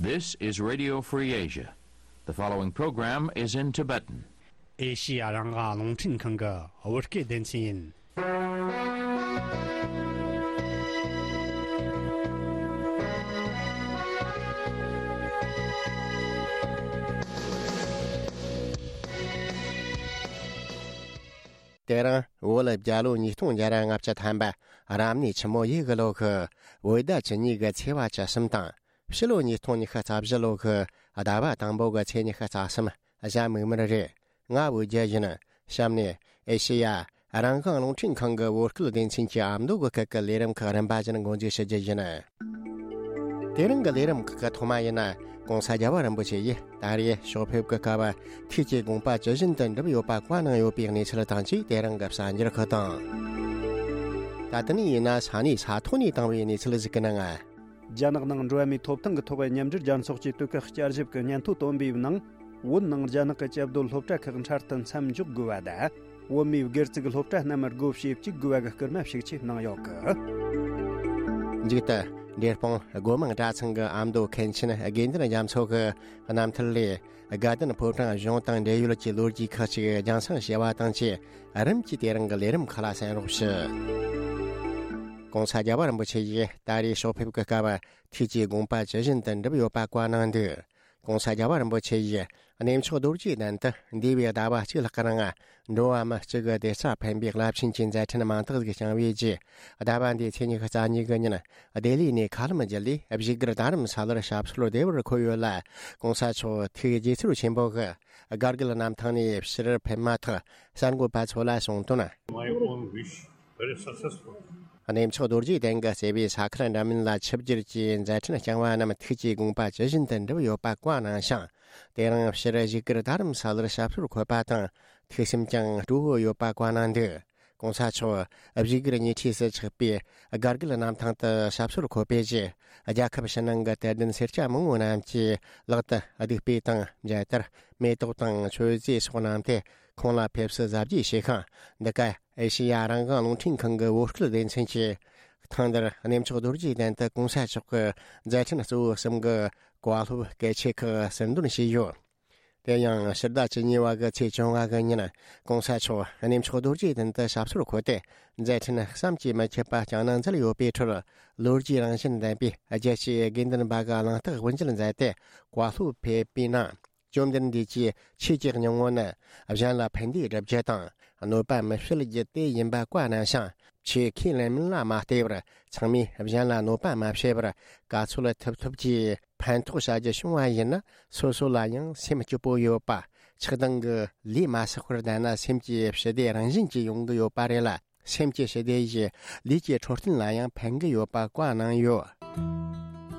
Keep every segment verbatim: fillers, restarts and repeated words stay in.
This is Radio Free Asia. The following program is in Tibetan. ཨེ་ཤི་ཡ་རང་དབང་རླུང་འཕྲིན་ཁང་གི་བོད་སྐད་སྡེ་ཚན་ཡིན། དེ་རིང་བོད་ལ་རྒྱལ་ལོ་ཉིས་སྟོང་བརྒྱ་ར་ལྔ་བཅུ་ཐམ་པ་རབ་གནས་ཆུ་མོ་ཡོས་གི་ལོ་གི་བོད་ཟླ་བཅུ་གཉིས་གི་ཚེས་པ་བཅུ་གསུམ་དང་། ཕྱི་ལོ་ཉིས་སྟོང་ཉི་ཤུ་རྩ་བཞི་ལོ་གི་ཟླ་བ་དང་པོ་གི་ཚེས་ཉི་ཤུ་རྩ་གསུམ་གཟའ་མིག་དམར་རེད། ང་བོད་རྒྱལ་ཡིན། གཤམ་ནས་ཨེ་ཤེ་ཡ་རང་དབང་རླུང་འཕྲིན་ཁང་གི་བོད་སྐད་སྡེ་ཚན་གྱི་ཨ་མདོ་གི་སྐད་ཀྱི་ལས་རིམ་ཁག་རིམ་པ་བཞིན་འགོ་འཛུགས་ཞུ་རྒྱུ་ཡིན། དེ་རིང་གི་ལས་རིམ་ཁག་གི་ཐོག་མ་ཡིན་ན། ྋགོང་ས་རྒྱལ་བ་རིན་པོ་ཆེ་ཡིས་ད་རེས་ཕྱོགས་ཕེབས་ཀྱི་སྐབས་ཐུགས་ཀྱི་དགོངས་པ་ཇི་བཞིན་དུ་འགྲུབ་ཡོད་པ་བཀའ་གནང་ཡོད་པའི་གནས་ཚུལ་དང་བཅས། དེ་རིང་གི་གསར་འགྱུར་ཁག་དང་། ད་ལྟ་ནས་ཡིན་ན་ས་གནས་ས་ཐོག་ནས་བཏང་བའི་གནས་ཚུལ་ཞིག་གི་ནང་། རྒྱ་ནག་ནང་འགྲོ་བ་མིའི་ཐོབ་ཐང་གི་ཐོག་མཉམ་འབྲེལ་རྒྱལ་ཚོགས་ཀྱི་དུས་བཀག་བསྐྱར་ཞིབ་ཀྱི་སྙན་ཐོ་བཏོན་པའི་ནང་། བོད་ནང་རྒྱ་ནག་གི་སྐྱབས་བསྡུར་སློབ་གྲྭ་ཁག་འཕྲལ་དུ་མཚམས་འཇོག་དགོས་པ་དང་། བོད་མིའི་སྒེར་བཙུགས་སློབ་གྲྭ་རྣམས་སྒོ་ཕྱེ་བཅུག་དགོས་པ་གི་སྐུལ་མ་ཤུགས་ཆེ་གནང་ཡོད་གི། མཇུག་ཏུ། འབྲས་སྤུངས་སྒོ་མང་གྲྭ་ཚང་གི་ཨ་མདོ་མཁན་ཆེན་དགེ་འདུན་རྒྱ་མཚོ་གི་རྣམ་ཐར་ལས། དགའ་ལྡན་ཕོ་བྲང་གཞུང་དང་འབྲེལ་ཡོད་ཀྱི་ལོ་རྒྱུས་ཁག་ཅིག་རྒྱང་སྲིང་བྱས་པ་དང་བཅས། རིམ་གྱིས་དེ་རིང་གི་ལས་རིམ་ཁག་ལ་གསན་རོགས་ཞུ། ྋགོང་ས་རྒྱལ་བ་རིན་པོ་ཆེ་ཡིས་ད་རེས་ཕྱོགས་ཕེབས་ཀྱི་སྐབས་ཐུགས་ཀྱི་དགོངས་པ་ཇི་བཞིན་དུ་འགྲུབ་ཡོད་པ་བཀའ་གནང་འདུག ྋགོང་ས་རྒྱལ་བ་རིན་པོ་ཆེ་ཡིས་གནས་མཆོག་རྡོ་རྗེ་གདན་དུ་འདས་པའི་ཟླ་བ་གཅིག་ལྷག་གི་ནང་འགྲོ་བ་མི་གཅིག་གི་བདེ་རྩ་ཕན་པའི་རླབས་ཆེན་གྱི་མཛད་འཕྲིན་མང་དག་ཞིག་བསྐྱངས་པའི་རྗེས། ཟླ་བ་འདིའི་ཚེས་ཉི་ཤུ་རྩ་གཉིས་གི་ཉིན་ལྡི་ལི་ནས་མཁའ་ལམ་བརྒྱུད་ལས་བཞུགས་སྒར་རྡ་རམ་ས་ལར་ཞབས་སོར་བདེ་བར་འཁོད་ཡོད་ལ། ྋགོང་ས་མཆོག་ཐུགས་དགྱེས་ཚོར་ཆེན་པོ་གིས་སྒར་དགུ་གནམ་ཐང་ནས་ཕྱིར་ཕེབས་མ་ཐག་གསར་འགོད་པ་ཚོ་ལ་གསུངས་དོན། My own wish, very successful. གནས་མཆོག་རྡོ་རྗེ་གདན་གྱི་བརྩེ་བའི་ས་ཁུལ་འདྲ་མིན་ལ་ཆིབས་བསྒྱུར་གྱིས་མཛད་འཕྲིན་བསྐྱངས་པ་རྣམས་ཐུགས་ཀྱི་དགོངས་པ་ཇི་བཞིན་དུ་འགྲུབ་ཡོད་པ་བཀའ་གནང་ཞིང་། དེ་རིང་ཕྱིར་བཞུགས་སྒར་རྡ་རམ་ས་ལར་ཞབས་སོར་འཁོད་པ་དང་ཐུགས་སེམས་ཀྱང་སྤྲོ་བོ་ཡོད་པ་བཀའ་གནང་འདུག ྋགོང་ས་མཆོག་བཞུགས་སྒར་ཉེ་འཁྲིས་སུ་ཆགས་པའི་སྒར་དགུ་གནམ་ཐང་དུ་ཞབས་སོར་འཁོད་པའི་རྗེས། རྒྱལ་ཁབ་ཕྱི་ནང་གི་དད་ལྡན་སེར་སྐྱ་མང་བོ་རྣམས་ཀྱིས་ལག་ཏུ་གདུགས་དཔེ་དང་མཇལ་དར། མེ་ཏོག་དང་མཆོད་རྫས་སོགས་གནང་སྟེ་ཁོང་ལ་ཕེབས་བསུ་གཟབ་རྒྱས་བྱས་ཤིང་། འདི་ག་ཨེ་ཤེ་ཡ་རང་དབང་རླུང་འཕྲིན་ཁང་གི་བོད་སྐད་སྡེ་ཚན་གྱིས་ཐེངས་འདིར་གནས་མཆོག་རྡོ་རྗེ་གདན་དུ་ྋགོང་ས་མཆོག་གི་མཛད་འཕྲིན་གཙོ་བོ་གསུམ་གྱི་བཀའ་སློབ་གལ་ཆེ་ཁག་ཟུར་འདོན་བྱས་ཡོད། དེ་ཡང་ཕྱི་ཟླ་བཅུ་གཉིས་པ་གི་ཚེས་བཅོ་ལྔ་གི་ཉིན་ྋགོང་ས་མཆོག་གནས་མཆོག་རྡོ་རྗེ་གདན་དུ་ཞབས་སོར་འཁོད་དེ་མཛད་འཕྲིན་བསམ་གྱིས་མི་ཁྱབ་པ་བསྐྱངས་གནང་མཛད་ཡོད་པའི་ཁྲོད། ལོ་རྒྱུས་རང་བཞིན་ལྡན་པའི་རྒྱལ་གཅེས་དགེ་འདུན་པ་གི་གླེང་སྟེགས་དབུ་འབྱེད་མཛད་དེ་བཀའ་སློབ་ཕེབས་པའི་ནང་། བཅོམ་ལྡན་འདས་ཀྱི་ཆོས་ཀྱི་སྙིང་པོ་ནི་གཞན་ལ་ཕན་བདེ་སྒྲུབ་རྒྱུ་དང་གནོད་པ་མི་བྱེད་རྒྱུ་དེ་ཡིན་པ་བཀའ་གནང་ཞིང་། ཆོས་ཁས་ལེན་མིན་ལ་མ་ལྟོས་པར་ཚང་མས་གཞན་ལ་གནོད་པ་མ་བྱས་པར་ག་ཚོད་ཐུབ་ཐུབ་ཀྱིས་ཕན་ཐོགས་བྱ་རྒྱུ་བྱུང་བ་ཡིན་ན། སོ་སོ་ལ་ཡང་སེམས་སྐྱིད་པོ་ཡོད་པ། ཆགས་སྡང་གི་ལས་མ་བསགས་པར་བསྡད་ན་སེམས་ཀྱི་ཞི་བདེ་རང་བཞིན་གྱིས་ཡོང་གི་ཡོད་པ་རེད་ལ། སེམས་ཀྱི་ཞི་བདེ་ཡིས་ལུས་ཀྱི་འཕྲོད་བསྟེན་ལ་ཡང་ཕན་གྱི་ཡོད་པ་བཀའ་གནང་ཡོད།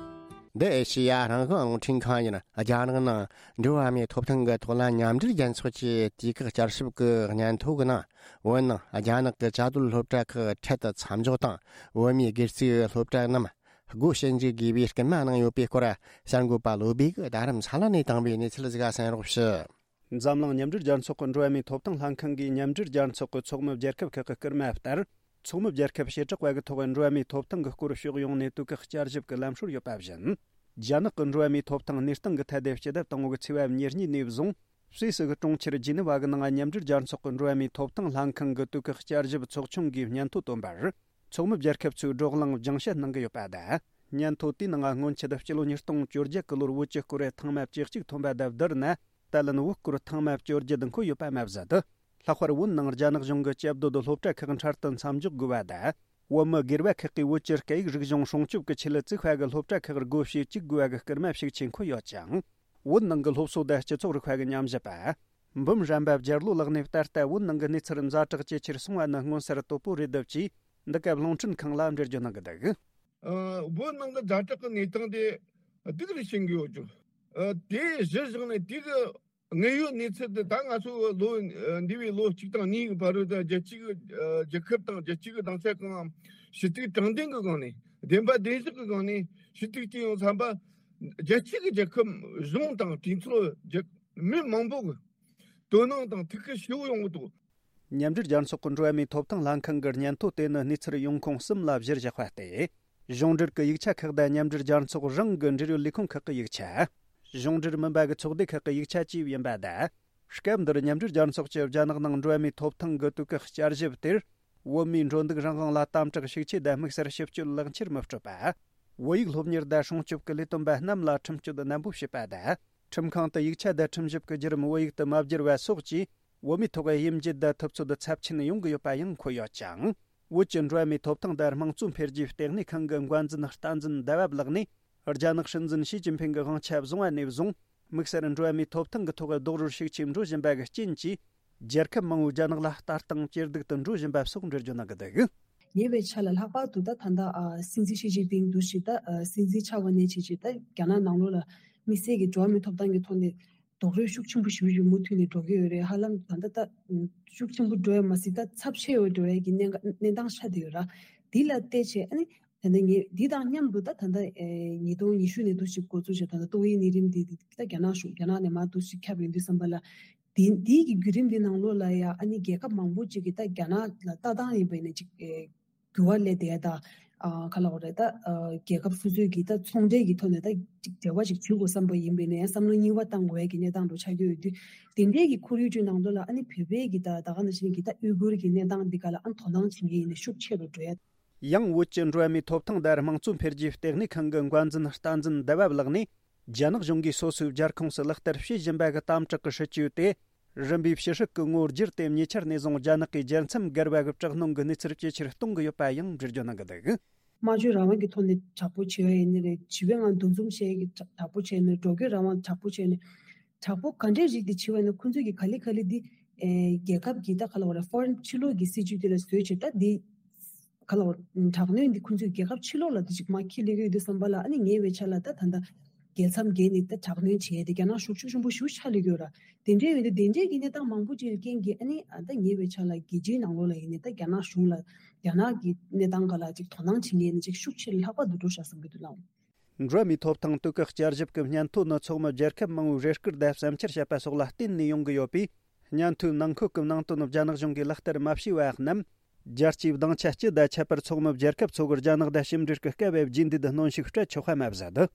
འདི་ཨེ་ཤེ་ཡ་རང་དབང་རླུང་འཕྲིན་ཁང་ཡིན། རྒྱ་ནག་ནང་འགྲོ་བ་མིའི་ཐོབ་ཐང་གི་ཐོག་ལ་མཉམ་འབྲེལ་རྒྱལ་ཚོགས་ཀྱི་དུས་བཀག་བསྐྱར་ཞིབ་ཀྱི་སྙན་ཐོ་གི་ནང་། བོད་ནང་རྒྱ་ནག་གི་བཅའ་སྡོད་སློབ་གྲྭ་ཁག་འཕྲལ་དུ་མཚམས་འཇོག་དང་། བོད་མིའི་སྒེར་བཙུགས་སློབ་གྲྭ་རྣམས་སྒོ་ཕྱེ་འཇུག་དགོས་པའི་སྐུལ་མ་གནང་ཡོད་པའི་སྐོར། གསར་འགོད་པ་བློ་བྷེ་གིས་རྡ་རམ་ས་ལ་ནས་བཏང་བའི་གནས་ཚུལ་ཞིག་གསན་རོགས་ཞུ། འཛམ་གླིང་མཉམ་འབྲེལ་རྒྱལ་ཚོགས་ཀྱི་འགྲོ་བ་མིའི་ཐོབ་ཐང་ལྷན་ཁང་གིས་མཉམ་འབྲེལ་རྒྱལ་ཚོགས་ཀྱི་ཚོགས་མི་རྒྱལ་ཁབ་ཁག་གི་སྐུལ་མ་ལྟར། ཚོགས་མི་རྒྱལ་ཁབ་བྱེ་བྲག་པ་གི་ཐོག་འགྲོ་བ་མིའི་ཐོབ་ཐང་གི་སྐོར་ཕྱོགས་ཡོངས་ནས་དུས་བཀག་བསྐྱར་ཞིབ་ཀྱི་ལམ་སྲོལ་ཡོད་པ་བཞིན། རྒྱ་ནག་གི་འགྲོ་བ་མིའི་ཐོབ་ཐང་གནས་སྟངས་ཀྱི་ཐད་དེ་སྤྱི་ཟླ་དང་པོ་གི་ཚེས་པ་ཉེར་གཉིས་ནས་བཟུང་སུད་སི་གི་གྲོང་ཁྱེར་ཇི་ནི་ཝ་གི་ནང་མཉམ་འབྲེལ་རྒྱལ་ཚོགས་ཀྱི་འགྲོ་བ་མིའི་ཐོབ་ཐང་ལྷན་ཁང་གི་དུས་བཀག་བསྐྱར་ཞིབ་ཚོགས་ཆུང་གིས་སྙན་ཐོ་བཏོན་པར། ཚོགས་མི་རྒྱལ་ཁབ་ཚོས་བགྲོ་གླེང་སྦྱང་བཤད་གནང་གི་ཡོད་པ་དང་། སྙན་ཐོ་དེའི་ནང་སྔོན་ཆད་སྤྱི་ལོ་ཉིས་སྟོང་བཅོ་བརྒྱད་ཀྱི་ལོར་བོད་ཀྱི་སྐོར་ཐེངས་མ་བཅུ་གཅིག་ཐོན་པ་དང་བསྡུར་ན། ད་ལན་བོད་སྐོར་ཐེངས་མ་བཅོ་བརྒྱད་འཁོད་ཡོད་པ་མ་ཟད། ལྷག་པར་བོད་ནང་རྒྱ་ནག་གཞུང་གི་སྐྱབས་བསྡུར་སློབ་གྲྭ་ཁག་འཕྲལ་དུ་མཚམས་འཇོག་དགོས་པ་དང་། བོད་མི་སྒེར་པ་ཁག་གིས་བོད་ཀྱི་སྐད་ཡིག་རིག་གཞུང་སྲུང་སྐྱོབ་ཀྱི་ཆེད་བཙུགས་པ་གི་སློབ་གྲྭ་ཁག་སྒོ་ཕྱེ་བཅུག་དགོས་པ་གི་སྐུལ་མ་ཤུགས་ཆེ་འཁོད་ཡོད་ཅིང་། བོད་ནང་གི་སློབ་གསོ་དང་སྤྱི་ཚོགས་རིག་པ་གི་ཉམས་ཞིབ་པ། འབུམ་རམས་པ་བརྒྱད་ལོ་ལགས་ནས་ད་ལྟ་བོད་ནང་གི་གནས་ཚུལ་ཛ་དྲག་ཇེ་ཆེར་སོང་བ་ནི་མངོན་གསལ་དོད་པོ་རེད་འདུག་ཅེས་འདི་སྐབས་རླུང་འཕྲིན་ཁང་ལ་འགྲེལ་བརྗོད་གནང་གི་འདུག། ཨ། བོད་ནང་གི་ཛ་དྲག་གི་གནས་སྟངས་དེ་སྡུག་རུ་ཕྱིན་གྱི་ཡོད་ཅོག། ཨ། དེ་གཞིར་བཞག་ནས་དེ་གི་དངོས་ཡོད་གནས་ཚུལ་དེ་ད་ང་ཚོ་ལོ་འདས་པའི་ལོ་གཅིག་དང་གཉིས་ཀྱི་བར་དུ་རྒྱལ་སྤྱི་གི་ཨ་རྒྱལ་ཁབ་དང་རྒྱལ་སྤྱི་གི་སྡིངས་ཆ་གང་ཞུ་གཏུག་དྲང་བདེན་གྱི་སྒང་ནས་བདེན་པ་བདེན་བཞག་གི་སྒང་ནས་ཞུ་གཏུག་བྱས་ཡོང་བསམ་པ། རྒྱལ་སྤྱི་གི་རྒྱལ་ཁབ་གཞུང་དང་གྲོས་ཚོགས་རྒྱལ་མི་མང་པོ་གི་དོ་སྣང་དང་ཐུགས་ཁུར་ཞེ་པོ་ཡོང་གི་འདུག། མཉམ་འབྲེལ་རྒྱལ་ཚོགས་ཀྱི་འགྲོ་བ་མིའི་ཐོབ་ཐང་ལྷན་ཁང་གི་སྙན་ཐོ་དེ་ནི་གནས་ཚུལ་ཡོང་ཁུངས་གསུམ་ལ་གཞིར་བཞག་པ་སྟེ། གཞུང་འབྲེལ་གྱི་ཡིག་ཆ་ཁག་དང་མཉམ་འབྲེལ་རྒྱལ་ཚོགས་རང་གི་འབྲེལ་ཡོད་ལས་ཁུངས་ཁག་གི་ཡིག་ཆ། གཞུང་འབྲེལ་མིན་པ་གི་ཚོགས་སྡེ་ཁག་གི་ཡིག་ཆ་བཅས་ཡིན་པ་དང་། སྐབས་འདིར་མཉམ་འབྲེལ་རྒྱལ་ཚོགས་ཀྱི་རྒྱ་ནག་ནང་འགྲོ་བ་མིའི་ཐོབ་ཐང་གི་དུས་བཀག་བསྐྱར་ཞིབ་དེར། བོད་མིའི་འགྲོ་འདུག་རང་དབང་ལ་དམ་དྲག་ཤུགས་ཆེ་དང་དམིགས་བསལ་ཞིབ་དཔྱོད་ལག་འཁྱེར་མི་སྤྲོད་པ། བོད་ཡིག་སློབ་གཉེར་དང་སྲུང་སྐྱོབ་ཀྱི་ལས་དོན་པ་རྣམས་ལ་ཁྲིམས་གཅོད་ནན་པོ་བྱེད་པ་དང་། ཁྲིམས་ཁང་དུ་ཡིག་ཆ་དང་ཁྲིམས་ཞིབ་ཀྱི་བརྒྱུད་རིམ་བོད་ཡིག་ཏུ་མ་བསྒྱུར་བ་སོགས་ཀྱིས། བོད་མིའི་ཐོག་དབྱེ་འབྱེད་དང་ཐུབ་ཚོད་ཚབས་ཆེན་ཡོང་གི་ཡོད་པ་ཡང་འཁོད་ཡོད་ཅིང་། བོད་ཀྱི་འགྲོ་བ་མིའི་ཐོབ་ཐང་དང་དམངས་གཙོ་འཕེལ་རྒྱས་ལྟེ་གནས་ཁང་གི་འགོ་འཛིན་བསྟན་འཛིན་ཟླ་བ་ལགས་ནས། རྒྱ་ནག་སྲིད་འཛིན་ཞི་ཅིན་ཕིང་གི་དབང་ཆ་བཟུང་བ་ནས་བཟུང་། དམིགས་བསལ་འགྲོ་བ་མིའི་ཐོབ་ཐང་གི་ཐོག་རྡོག་རོལ་ཤུགས་ཆེ་འགྲོ་བཞིན་པ་གི་རྐྱེན་གྱིས། རྒྱལ་ཁབ་མང་བོས་རྒྱ་ནག་ལ་ལྟ་སྟངས་ཇེ་སྡུག་ཏུ་འགྲོ་བཞིན་པ་སོགས་འགྲེལ་བརྗོད་གནང་གི་འདུག། ཉེ་བའི་ཆར་ལ་ལྷག་པར་དུ་ད་ད་ལྟ་ཨ་སྲིད་འཛིན་ཞི་ཅིན་ཕིང་འདུ་ཞིག་ད་ཨ་སྲིད་འཛིན་ཆགས་པ་ནས་བྱས་བྱས་ད་རྒྱ་ནག་ནང་ལོགས་ལ་དམིགས་བསལ་གྱི་འགྲོ་བ་མིའི་ཐོབ་ཐང་གི་ཐོག་ནས་རྡོག་རོལ་ཤུགས་ཆེན་པོ་ཞེ་པོ་ཞིག་མུ་མཐུད་ནས་འགྲོ་གི་ཡོད་རེད། ཧ་ལམ་ད་ལྟ་ད་ཤུགས་ཆེན་པོ་འགྲོ་ཡ་མ་ཟད་ད་ཚབས་ཆེ་བའི་འགྲོ་ཡ་གི་གནས་གནས་སྟངས་ཆགས་བསྡད་ཡོད་ར། འདི་ལ་བལྟས་བྱས་ཨ་ནི་ད་ལྟ་ངས་འདི་དང་མཉམ་དུ་ད་ད་ལྟ་ཨེ་ཉིས་སྟོང་ཉི་ཤུ་ནས་འདུ་ཞིག་འགོ་འཛུགས་བྱས་ད་ལྟ་ཏོག་དབྱིབས་ནད་རིམས་འདི་ད་རྒྱ་ནག་གཞུང་རྒྱ་ནག་ནས་མར་འདུ་ཞིག་ཁྱབ་ཡོང་དུས་ཙམ་པ་ལ། དེ་དེའི་གི་བརྒྱུད་རིམ་འདི་ནང་ལོགས་ལ་ཡང་ཨ་ནི་རྒྱལ་ཁབ་མང་པོ་ཅིག་གིས་ད་རྒྱ་ནག་ལ་ལྟ་སྟངས་ཡིན་པ་ཡིན་ན་ཅིག་ཨེ་འགྱུར་བ་སླེབས་བསྡད་ཡ་ད་ཨ་ག་ལབ་དགོས་རེད་ད་ཨ་རྒྱལ་ཁབ་སོ་སོའི་གི་ད་ཚོང་འབྲེལ་གི་ཐོག་ནས་ད་ཅིག་འབྲེལ་བ་ཅིག་བྱེད་དགོས་བསམ་པ་ཡིན་པ་ཡིན་ན་ཡང་བསམ་བློ་གཉིས་པ་བཏང་དགོས་ཡ་གི་གནས་སྟངས་འདྲ་ཆགས་ཀྱི་ཡོད་དུས། དེ་འདྲའི་གི་ཁོར་ཡུག་ཅིག་ནང་ལོགས་ལ་ཨ་ནི་བོད་པའི་གི་ད་ད་ག་ནང་བཞིན་གི་ད་ཨུ་གུར་གི་གནས་སྟངས་འདི་ག་ལ་ཨ་དོ་སྣང་བྱེད་མཁན་ཡིན་ན་ཤུགས་ཆེ་རུ་འགྲོ་ཡ། ཡང་བོད་ཀྱི་འགྲོ་བ་མིའི་ཐོབ་ཐང་དང་དམངས་གཙོ་འཕེལ་རྒྱས་ལྟེ་གནས་ཁང་གི་འགོ་འཛིན་བསྟན་འཛིན་ཟླ་བ་ལགས་ནས། རྒྱ་ནག་གཞུང་གིས་སོ་སོའི་རྒྱལ་ཁོངས་སུ་ལག་བསྟར་བྱེད་བཞིན་པ་གི་དམ་དྲག་གི་སྲིད་ཇུས་དེ། རིམ་པས་ཕྱི་ཧྲིལ་གྱི་ངོ་བསྒྱུར་ཏེ་ཉེ་ཆར་ནས་བཟུང་རྒྱ་ནག་གིས་རྒྱལ་མཚམས་བརྒལ་བ་གི་དྲག་གནོན་གྱི་གནས་ཚུལ་ཇེ་ཆེར་གཏོང་གི་ཡོད་པ་ཡང་འགྲེལ་བརྗོད་གནང་གི་འདུག། སྨྲ་བརྗོད་རང་དབང་གི་ཐོག་ནས་དྲག་པོ་བྱེད་ཡ་ཡིན་ནི་རེད། བྱིས་པའི་ངང་འདུ་འཛོམས་བྱེད་ཡ་གི་དྲག་པོ་བྱས་ནས་འགྲོ་སྐྱོད་རང་དབང་དྲག་པོ་བྱས་ནས་དྲག་པོ་ག་འདྲའི་རིགས་དེ་བྱེད་པ་ཡིན་ན་ཁོང་ཚོས་ཀྱི་ག་ལེ་ག་ལེ་འདི་ཨེ་རྒྱལ་ཁབ་ཀྱི་ད་ག་ལ་བ་རེད་ཧྥོ་རིན་ཕྱི་ལོགས་ཀྱི་སྲིད་ཇུས་དེ་ལ་བཟོས་བྱས་ད་འདི། ག་ལ་བ་དྲག་གནོན་འདི་ཁོང་ཚོས་རྒྱལ་ཁབ་ཕྱི་ལོགས་ལ་འདི་ཅིག་མ་འཁྱེར་སླེབས་ཀྱི་ཡོད་དུས་ཙམ་པ་ལ་ཨ་ནི་ཉེ་བའི་ཆར་ལ་ད་ད་ལྟ་རྒྱལ་མཚམས་བརྒལ་ནས་ད་དྲག་གནོན་བྱས་ཏེ་རྒྱ་ནག་ཤུགས་ཤུགས་ཆེན་པོ་ཞེ་པོ་ཆགས་སླེབས་ཀྱི་ཡོད་ར། དེ་འདྲའི་ཡོད་དུས་དེ་འདྲའི་གི་གནས་སྟངས་མང་པོ་ཅིག་གི་རྐྱེན་གྱིས་ཨ་ནི་ཨ་ད་ཉེ་བའི་ཆར་ལ་རྒྱལ་སྤྱིའི་ནང་ལོགས་ལ་ཡིན་ནའི་ད་རྒྱ་ནག་གཞུང་ལ་རྒྱ་ནག་གི་གནས་སྟངས་སྒང་ལ་ཅིག་དོ་སྣང་བྱེད་མཁན་ནི་ཅིག་ཤུགས་ཆེ་ལྷག་པ་འདུག་འགྲོ་ཤག་བསམ་གྱི་འདུག་ལགས། འགྲོ་བ་མིའི་ཐོབ་ཐང་དུས་བཀག་བསྐྱར་ཞིབ་ཀྱི་སྙན་ཐོ་ནི་ཚོགས་མི་རྒྱལ་ཁབ་མང་བོའི་རེ་སྐུལ་དང་བསམ་འཆར་བཤད་པ་སོགས་ལ་བརྟེན་ནས་ཡོང་གི་ཡོད་པས། སྙན་ཐོའི་ནང་འཁོད་ཀྱི་ནང་དོན་རྒྱ་ནག་གཞུང་གིས་ལག་བསྟར་མ་བྱས་པ་རྣམས། རྒྱལ་སྤྱིའི་སྡིངས་ཆ་སྤྱི་དང་ཁྱད་པར་ཚོགས་མི་རྒྱལ་ཁབ་ཚོ་གི་རྒྱ་ནག་དང་ཕྱི་འབྲེལ་གྱི་སྐབས་བརྗེ་འདེད་གནོན་ཤུགས་སྤྲད་ཆོག་པ་མ་ཟད།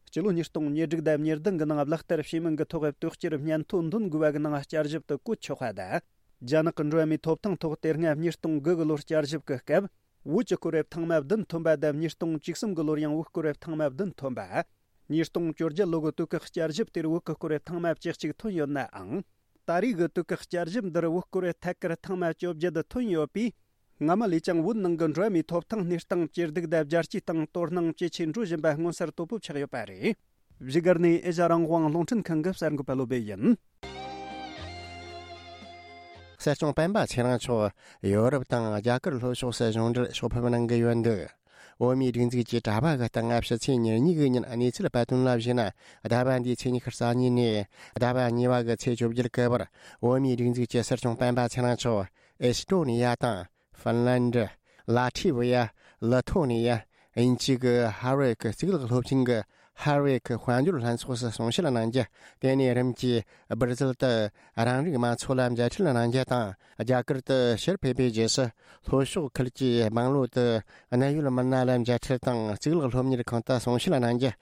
སྤྱི་ལོ་ཉིས་སྟོང་ཉེར་དྲུག་དང་ཉེར་བདུན་གྱི་ནང་ལག་བསྟར་བྱས་མིན་གྱི་ཐོག་དོག་གཅོད་སྙན་ཐོ་འདོན་དགོས་པ་གི་ནང་བསྐྱར་ཞིབ་ཏུ་བཀོད་ཆོག་པ་དང་། རྒྱ་ནག་གི་འགྲོ་བ་མིའི་ཐོབ་ཐང་ཐོག་དེ་སྔ་ཉིས་སྟོང་དགུ་གི་ལོར་བསྐྱར་ཞིབ་ཀྱི་སྐབས། བོད་ཀྱི་སྐོར་རབ་ཐེངས་མ་བདུན་ཐོན་པ་དང་ཉིས་སྟོང་བཅུ་གསུམ་གྱི་ལོར་ཡང་བོད་སྐོར་རབ་ཐེངས་མ་བདུན་ཐོན་པ། ཉིས་སྟོང་བཅོ་བརྒྱད་ལོ་གི་དུས་བཀག་བསྐྱར་ཞིབ་དེར་བོད་ཀྱི་སྐོར་རབ་ཐེངས་མ་བཅུ་གཅིག་ཐོན་ཡོད་ནའང་། ད་རེས་ཀྱི་དུས་བཀག་བསྐྱར་ཞིབ་འདིར་བོད་སྐོར་རབ་ཐད་ཀར་ཐེངས་མ་བཅོ་བརྒྱད་ཐོན་ཡོད་པས། སྔ་མ་ལས་ཀྱང་བོད་ནང་གི་འགྲོ་བ་མིའི་ཐོབ་ཐང་གནས་སྟངས་ཇེ་སྡུག་དང་རྒྱལ་སྤྱིའི་སྟེང་དོ་སྣང་ཇེ་ཆེ་འགྲོ་བཞིན་པ་མངོན་གསལ་དོད་པོ་ཆགས་ཡོད་པ་རེད། བཞུགས་སྒར་ནས་ཨེ་ཤ་རང་དབང་རླུང་འཕྲིན་ཁང་གི་གསར་འགོད་པ་བློ་བྷེ་ཡིན། སྲིད་སྐྱོང་སྤེན་པ་ཚེ་རིང་མཆོག་ཡོ་རོབ་དང་རྒྱ་གར་ལྷོ་ཕྱོགས་སུ་གཞུང་འབྲེལ་ཕྱོགས་ཕེབས་གནང་གི་ཡོད་འདུག། འོ་མའི་སྒྲིག་འཛུགས་ཀྱི་དྲ་བ་གི་སྟེང་ཕྱི་ཚེས་ཉེར་གཉིས་ཀྱི་ཉིན་གནས་ཚུལ་སྤེལ་དོན་ལ་གཞིགས་ན། ཟླ་བ་འདིའི་ཚེས་ཉི་ཤུ་རྩ་གཉིས་ནས་ཟླ་བ་གཉིས་པ་གི་ཚེས་བཅོ་བརྒྱད་གི་བར། འོ་མའི་སྒྲིག་འཛུགས་ཀྱི་སྲིད་སྐྱོང་སྤེན་པ་ཚེ་རིང་མཆོག་ཨེ་སི་ཏྲོ་ནི་ཡ་དང་། ཧྥིན་ལན་ཌི། ལ་ཐི་ཝི་ཡ། ལི་ཐོ་ནི་ཡ། དབྱིན་ཇི་གི་ཧར་ཝར་ཌི་གཙུག་ལག་སློབ་ཆེན་གྱི་ཧར་ཝར་ཌི་དཔལ་འབྱོར་ལྷན་ཚོགས་སུ་གསུང་བཤད་གནང་རྒྱུ། དེ་ནས་རིམ་གྱིས་སྦིར་ཟིལ་དུ་རང་རིགས་དམངས་ཚོགས་ལ་མཇལ་འཕྲད་གནང་རྒྱུ་དང་། རྒྱ་གར་དུ་ཕྱིར་ཕེབས་པའི་རྗེས་སུ། ལྷོ་ཕྱོགས་ཁུལ་གྱི་སྦང་ལོ་དུ་གནད་ཡོད་མི་སྣ་ལ་མཇལ་འཕྲད་དང་གཙུག་ལག་སློབ་གཉེར་ཁང་དུ་གསུང་བཤད་གནང་རྒྱུ།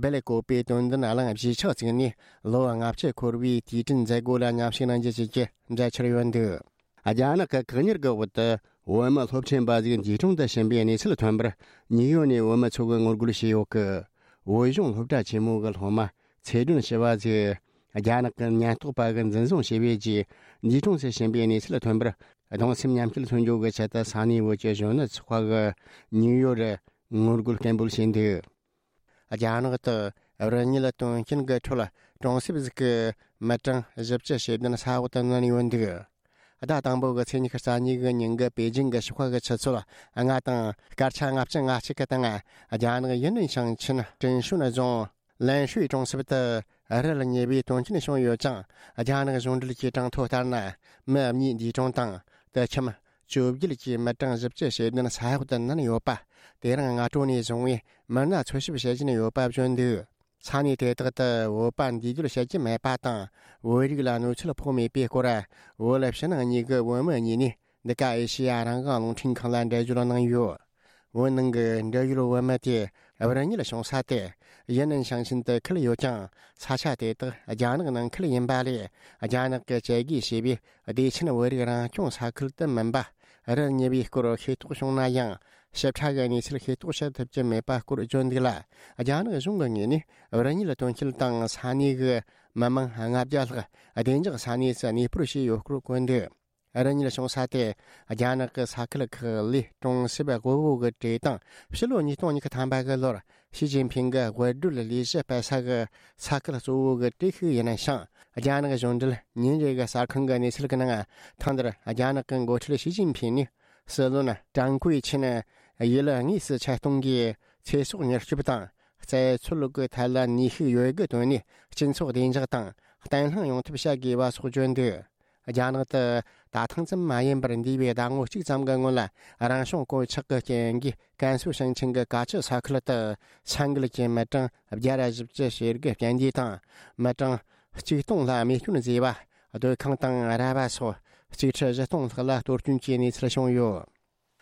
སྦེལ་ཀོབ་པའི་དོན་ལྡན་གླིང་གཞིས་ཆགས་བཙུགས་ནས་ལོ་ལྔ་བཅུ་འཁོར་བའི་དུས་དྲན་མཛད་སྒོ་ལ་མཉམ་ཞུགས་གནང་རྒྱུ་བཅས་ཀྱི་མཛད་འཆར་ཡོད་འདུག། རྒྱ་ནག་གི་བཀག་ཉར་གྱི་འོག་ཏུ་བོད་མི་སློབ་ཕྲུག་འབའ་ཞིག་འདས་གྲོངས་དུ་ཕྱིན་པའི་གནས་ཚུལ་ཐོན་པར། ཉིའུ་ཡོག་ནས་བོད་མི་ཚོ་གིས་ངོ་རྒོལ་བྱས་ཡོད་སྐད། བོད་གཞུང་སློབ་གྲྭ་ཆེན་མོ་གི་སློབ་མ་ཚེ་སྒྲོན་ཞུ་བ་ཞིག་རྒྱ་ནག་གི་ཉེན་རྟོག་པ་གིས་འཛིན་བཟུང་བྱས་པའི་རྗེས་འདས་གྲོངས་སུ་ཕྱིན་པའི་གནས་ཚུལ་ཐོན་པར། གདུང་སེམས་མཉམ་སྐྱེད་མཚོན་ཆེད་ཀྱི་ཆེད་དུ་ས་གནས་བོད་ཀྱི་གཞོན་ནུ་ཚོགས་པ་གིས་ཉིའུ་ཡོག་རུ་ངོ་རྒོལ་སྐད་འབོད་བྱས་འདུག། རྒྱ་ནག་ཏུ་རི་ཉིལ་དོན་རྐྱེན་གྱི་ཁྲོད་གྲོང་གསེབ་ཟིག་གི་མི་གྲངས་བཞི་བཅུ་ཞེ་བདུན་ས་འོག་ཏུ་མནན་ཡོད་འདུག། ཟླ་དང་པོ་གི་ཚེས་ཉི་ཤུ་རྩ་གཉིས་གི་ཉིན་གྱི་པེ་ཅིང་གི་ཞོགས་ཁ་གི་ཆུ་ཚོད་ལྔ་དང་སྐར་ཆ་ལྔ་བཅུ་ང་གཅིག་གི་སྟེང་། རྒྱ་ནག་ཡུན་ནན་ཞིང་ཆེན་ཀྲིན་ཧྲུན་རྫོང་ལན་ཧྲུའེ་གྲོང་གསེབ་ཏུ་རི་ལ་ཉེ་བའི་དོན་རྐྱེན་བྱུང་ཡོད་ཅིང་། རྒྱ་ནག་གཞུང་འབྲེལ་གྱི་གྲངས་ཐོ་ལྟར་ན། མི་གཉིས་འདས་གྲོངས་དང་། དུད་ཁྱིམ་བཅོ་བརྒྱད་ཀྱི་མི་གྲངས་བཞི་བཅུ་ཞེ་བདུན་ས་འོག་ཏུ་མནན་ཡོད་པ། དེ་རིང་སྔ་དྲོ་ནས་བཟུང་བའི་མི་སྣ་འཚོལ་ཞིབ་བྱེད་བཞིན་ཡོད་པ་བརྗོད་འདུག། ས་གནས་དེ་དག་ཏུ་བོད་པ་འདས་སྡོད་བྱེད་ཀྱི་མེད་པ་དང་། བོད་རིགས་ལ་གནོད་འཚེ་ཕོག་མེད་པའི་སྐོར། བོད་ཕྱི་ནང་གཉིས་ཀྱི་བོད་མི་གཉིས་ནས་འདི་ག་ཨེ་ཤེ་ཡ་རང་དབང་རླུང་འཕྲིན་ཁང་ལ་འགྲེལ་བརྗོད་གནང་ཡོད། བོད་ནང་གི་འབྲེལ་ཡོད་བོད་མི་དེ་བར་གཉིད་བྱུང་ས་དེ་ཡུན་ནན་ཞིང་ཆེན་དུ་ཁུལ་ཡོད་ཀྱང་། ས་ཆ་དེ་དག་རྒྱ་ནག་ནང་ཁུལ་ཡིན་པ་ལས། རྒྱ་ནག་གི་བཅད་བགོས་བྱས་པའི་བདེ་ཆེན་བོད་རིགས་རང་སྐྱོང་ས་ཁུལ་དུ་མིན་པ་རུ་ཉེ་བའི་སྐོར་ཤེས་རྟོགས་བྱུང་ན་ཡང་། ཞིབ་ཕྲ་གི་གནས་ཚུལ་ཤེས་རྟོགས་བྱེད་ཐུབ་ཀྱི་མེད་པ་སྐོར་བརྗོད་འདུག་ལ། རྒྱ་ནག་གཞུང་གི་ངོས་ནས་བར་གཉིད་དོན་རྐྱེན་དང་ས་གནས་གི་མི་མང་ལྔ་བརྒྱ་ལྷག་བདེ་འཇགས་ས་གནས་སུ་གནས་སྤོར་བྱས་ཡོད་སྐོར་བཀོད་འདུག་རང་ཉིད་བྱུང་ས་དེ་རྒྱ་ནག་གི་ས་ཁུལ་ཁག་ལས་གྲོང་གསེབ་དབུལ་བོ་གི་གྲས་དང་། ཕྱི་ལོ་ཉིས་སྟོང་ཉི་ཤུ་ཐམ་པ་གི་ལོར་ཞི་ཅིན་ཕིང་གི་དབུལ་སྒྲོལ་ལས་གཞི་སྤེལ་ས་གི་ས་ཁུལ་གཙོ་བོ་གི་གྲས་ཤིག་ཡིན་ཞིང་། རྒྱ་ནག་གཞུང་འབྲེལ་ཉིན་རེ་གི་གསར་ཁང་གི་གནས་ཚུལ་གྱི་ནང་། ཐེངས་འདིར་རྒྱ་ནག་གི་འགོ་ཁྲིད་ཞི་ཅིན་ཕིང་ནས་སྲིད་བློན་ཀྲང་ཀུའེ་ཆིན་ཡུལ་དངོས་སུ་ཆེད་གཏོང་གིས་ཚེ་སྲོག་མྱུར་སྐྱོབ་དང་། རྩད་འཚོལ་གྱི་ཐད་ལ་ནུས་ཤུགས་ཡོད་དགུ་བཏོན་ནས་སྤྱི་ཚོགས་བདེ་འཇགས་དང་བརྟན་ལྷིང་ཡོང་ཐབས་བྱ་དགོས་པ་སོགས་བརྗོད་འདུག་རྒྱ་ནག་ཏུ་ད་ཐེངས་ཙམ་མ་ཡིན་པར་འདས་པའི་ཟླ་ངོ་གཅིག་ཙམ་གྱི་སྔོན་ལ་རང་བྱུང་གོད་ཆག་གི་རྐྱེན་གྱིས་ཀན་སུའུ་ཞིང་ཆེན་གྱི་ཀ་ཆུ་ས་ཁུལ་དུ་ས་འགུལ་གྱིས་མི་གྲངས་བརྒྱ་ར་བཞི་བཅུ་ཞེ་དགུ་བརྟན་བརླིང་དང་། མི་གྲངས་གཅིག་སྟོང་ལྷག་རྨས་སྐྱོན་བཟོས་པ། སྡོད་ཁང་དང་ར་བ་སོགས་གཅིག་ཁྲི་བཞི་སྟོང་ལྷག་ལ་གཏོར་སྐྱོན་གྱི་གནས་ཚུལ་བྱུང་ཡོད།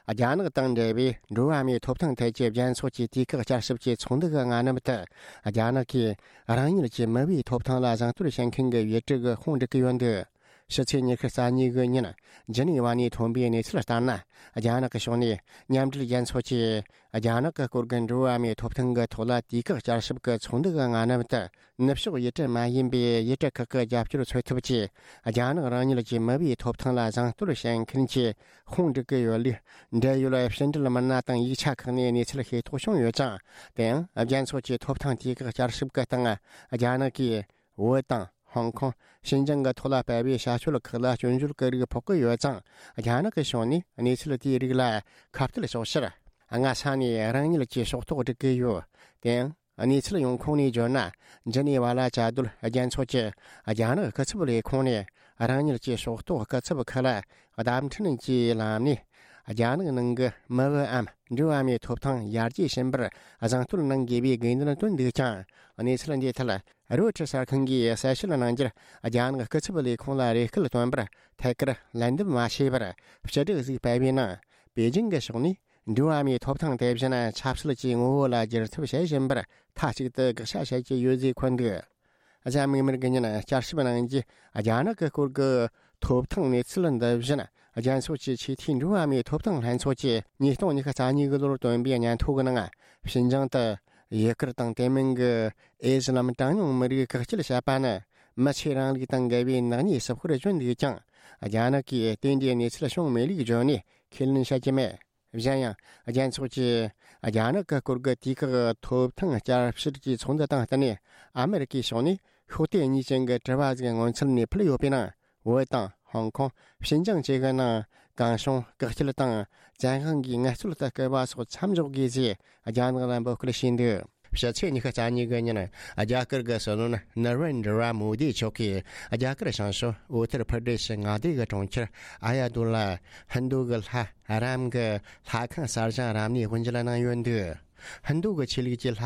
རྒྱ་ནག་དང་འབྲེལ་བའི་འགྲོ་བ་མིའི་ཐོབ་ཐང་ཐད་ཀྱི་རྒྱལ་ཚོགས་ཀྱི་དུས་བཀག་བསྐྱར་ཞིབ་ཀྱི་ཚོགས་འདུ་གི་སྔ་ནུབ་ཏུ། རྒྱ་ནག་གིས་རང་ཉིད་ཀྱི་མི་བུའི་ཐོབ་ཐང་ལ་བཟང་བསྟོད་བྱེད་མཁན་གྱི་བོད་ཕྲུག་གི་དཔུང་སྒྲིག་གི་ཡོད་འདུག་ཕྱི་ཚེས་ཉི་ཤུ་རྩ་གཉིས་གི་ཉིན་ཇི་ནི་ཝ་ནས་ཐོན་པའི་གནས་ཚུལ་ལྟར་ན། རྒྱ་ནག་གི་ཕྱོགས་ནས་མཉམ་འབྲེལ་རྒྱལ་ཚོགས་ཀྱིས་རྒྱ་ནག་གི་སྐོར་གྱི་འགྲོ་བ་མིའི་ཐོབ་ཐང་གི་ཐོག་ལ་དུས་བཀག་བསྐྱར་ཞིབ་ཀྱི་ཚོགས་འདུ་གི་སྔ་ནུབ་ཏུ། ནུབ་ཕྱོགས་ཡུལ་གྲུ་མ་ཡིན་པའི་ཡུལ་གྲུ་ཁག་གི་རྒྱབ་སྐྱོར་འཚོལ་ཐབས་ཀྱིས། རྒྱ་ནག་རང་ཉིད་ཀྱི་མི་བུའི་ཐོབ་ཐང་ལ་བཟང་བསྟོད་བྱེད་མཁན་གྱི་དཔུང་སྒྲིག་གི་ཡོད་ལུགས། འབྲེལ་ཡོད་ཕྱི་འབྲེལ་མི་སྣ་དང་ཡིག་ཆ་ཁག་ནས་གནས་ཚུལ་ཤེས་རྟོགས་བྱུང་ཡོད་ཅིང་། དེ་ཡང་རྒྱལ་ཚོགས་ཀྱི་ཐོབ་ཐང་དུས་བཀག་བསྐྱར་ཞིབ་ཀྱི་སྟེང་། རྒྱ་ནག་གིས་བོད་དང་ཧོང་ཀོང་། ཤིན་ཅང་གི་ཐོག་ལ་སྤེལ་བའི་བྱ་སྤྱོད་ཁག་ལ་སྐྱོན་བརྗོད་ཀྱི་རིགས་ཕོག་གི་ཡོད་ཙང་། རྒྱ་ནག་གི་ཕྱོགས་ནས་གནས་ཚུལ་དེའི་རིགས་ལ་ཁ་གཏད་གཅོག་ཕྱིར། སྔ་ས་ནས་རང་ཉིད་ཀྱི་ཕྱོགས་གཏོགས་སྒྲིག་གི་ཡོད། དེ་ཡང་། གནས་ཚུལ་ཡོང་ཁུངས་ནས་བརྗོད་ན། ཇི་ནི་ཝ་ལ་བཅའ་སྡོད་རྒྱལ་ཚོགས་ཀྱི་རྒྱ་ནག་སྐུ་ཚབ་ལས་ཁུངས་ནས་རང་ཉིད་ཀྱི་ཕྱོགས་གཏོགས་སྐུ་ཚབ་ཁག་ལ་བརྡ་འཕྲིན་གྱི་ལམ་ནས། རྒྱ་ནག་ནང་གི་མི་བུའམ་འགྲོ་བ་མིའི་ཐོབ་ཐང་ཡར་རྒྱས་ཕྱིན་པར་བཟང་བསྟོད་གནང་དགོས་པའི་དགོས་འདུན་བཏོན་འདུག་ཀྱང་། གནས་ཚུལ་འདིའི་ཐད་རོའི་ཊར་གསར་ཁང་གིས་གསལ་བཤད་གནང་རྒྱུར། རྒྱ་ནག་སྐུ་ཚབ་ལས་ཁུངས་ལ་རེ་སྐུལ་བཏོན་པར་ཐད་ཀར་ལན་འདེབས་མ་བྱས་པར། སྤྱི་སྒྲོག་ཟིག་སྤེལ་བའི་ནང་། པེ་ཅིང་གི་ཕྱོགས་ནས། འགྲོ་བ་མིའི་ཐོབ་ཐང་དེ་བཞིན་ཆབ་སྲིད་ཀྱི་ངོ་བོ་ལ་བསྒྱུར་ཐབས་བྱེད་བཞིན་པར་མཐའ་གཅིག་ཏུ་དགག་བྱ་བྱེད་ཀྱི་ཡོད་ཅེས་འཁོད་འདུག་གཟའ་མིག་དམར་གྱི་ཉིན་བསྐྱར་ཞིབ་གནང་རྒྱུ། རྒྱ་ནག་གི་སྐོར་གྱི་ཐོབ་ཐང་གནས་ཚུལ་འདི་བཞིན། རྒྱལ་ཚོགས་ཀྱི་ཆེས་མཐོའི་འགྲོ་བ་མིའི་ཐོབ་ཐང་ལྷན་ཚོགས་ཀྱིས་ཉིས་སྟོང་ཉི་ཤུ་རྩ་གཉིས་གི་ལོར་བཏོན་པའི་སྙན་ཐོ་གི་ནང་། ཞིན་ཅང་དུ་ཡུ་གུར་དང་དེ་མིན་གྱི་ཨེ་ཛི་ལམ་གྲངས་ཉུང་མི་རིགས་བཀག་སྐྱིལ་བྱས་པ་ནི། མི་ཆོས་རིང་ལུགས་དང་འགལ་བའི་ནག་ཉེས་སུ་སྐོར་བརྗོད་འདུག་ཀྱང་། རྒྱ་ནག་གིས་དེ་འདྲའི་གནས་ཚུལ་བྱུང་མེད་ལུགས་བརྗོད་ནས་ཁས་ལེན་བྱ་རྒྱུ་མེད། གཞན་ཡང་། རྒྱལ་ཚོགས་ཀྱིས་རྒྱ་ནག་གི་སྐོར་གྱི་དུས་བཀག་ཐོབ་ཐང་བསྐྱར་བཤེར་གྱི་ཚོགས་འདུ་དང་བསྟུན་ནས། ཨ་མེ་རི་ཀའི་ཕྱོགས་ནས་ཤོག་དེབ་གཉིས་ཅན་གྱི་དྲི་བ་ཟིག་སྔོན་ཚུད་ནས་ཕུལ་ཡོད་པའི་ནང་། བོད་དང་ཧོང་ཀོང་། ཤིན་ཅང་བཅས་ཀྱི་ནང་། གང་བྱུང་བཀག་སྐྱིལ་དང་། བཙན་དབང་གིས་ངལ་རྩོལ་དུ་བསྐུལ་བ་སོགས་མཚམས་འཇོག་དགོས་ཞེས་རྒྱ་ནག་ལ་འབོད་སྐུལ་བྱས་འདུག་ཕྱི་ཚེས་ཉི་ཤུ་རྩ་གཉིས་གི་ཉིན། རྒྱ་གར་གྱི་སྲིད་བློན་ན་རེན་དྲ་བྷ་མོ་དི་མཆོག་གིས། རྒྱ་གར་བྱང་ཕྱོགས་ཨུ་ཏར་པར་དེ་ཤི་མངའ་སྡེ་གི་གྲོང་ཁྱེར་ཨ་ཡ་དུ་ལ། ཧིན་རྡུ་གི་ལྷ་རམ་གྱི་ལྷ་ཁང་གསར་བཞེངས་རབ་གནས་དབུ་འབྱེད་གནང་ཡོད་འདུག་ཧིན་རྡུ་གི་ཆོས་ལུགས་ཀྱི་ལྷ་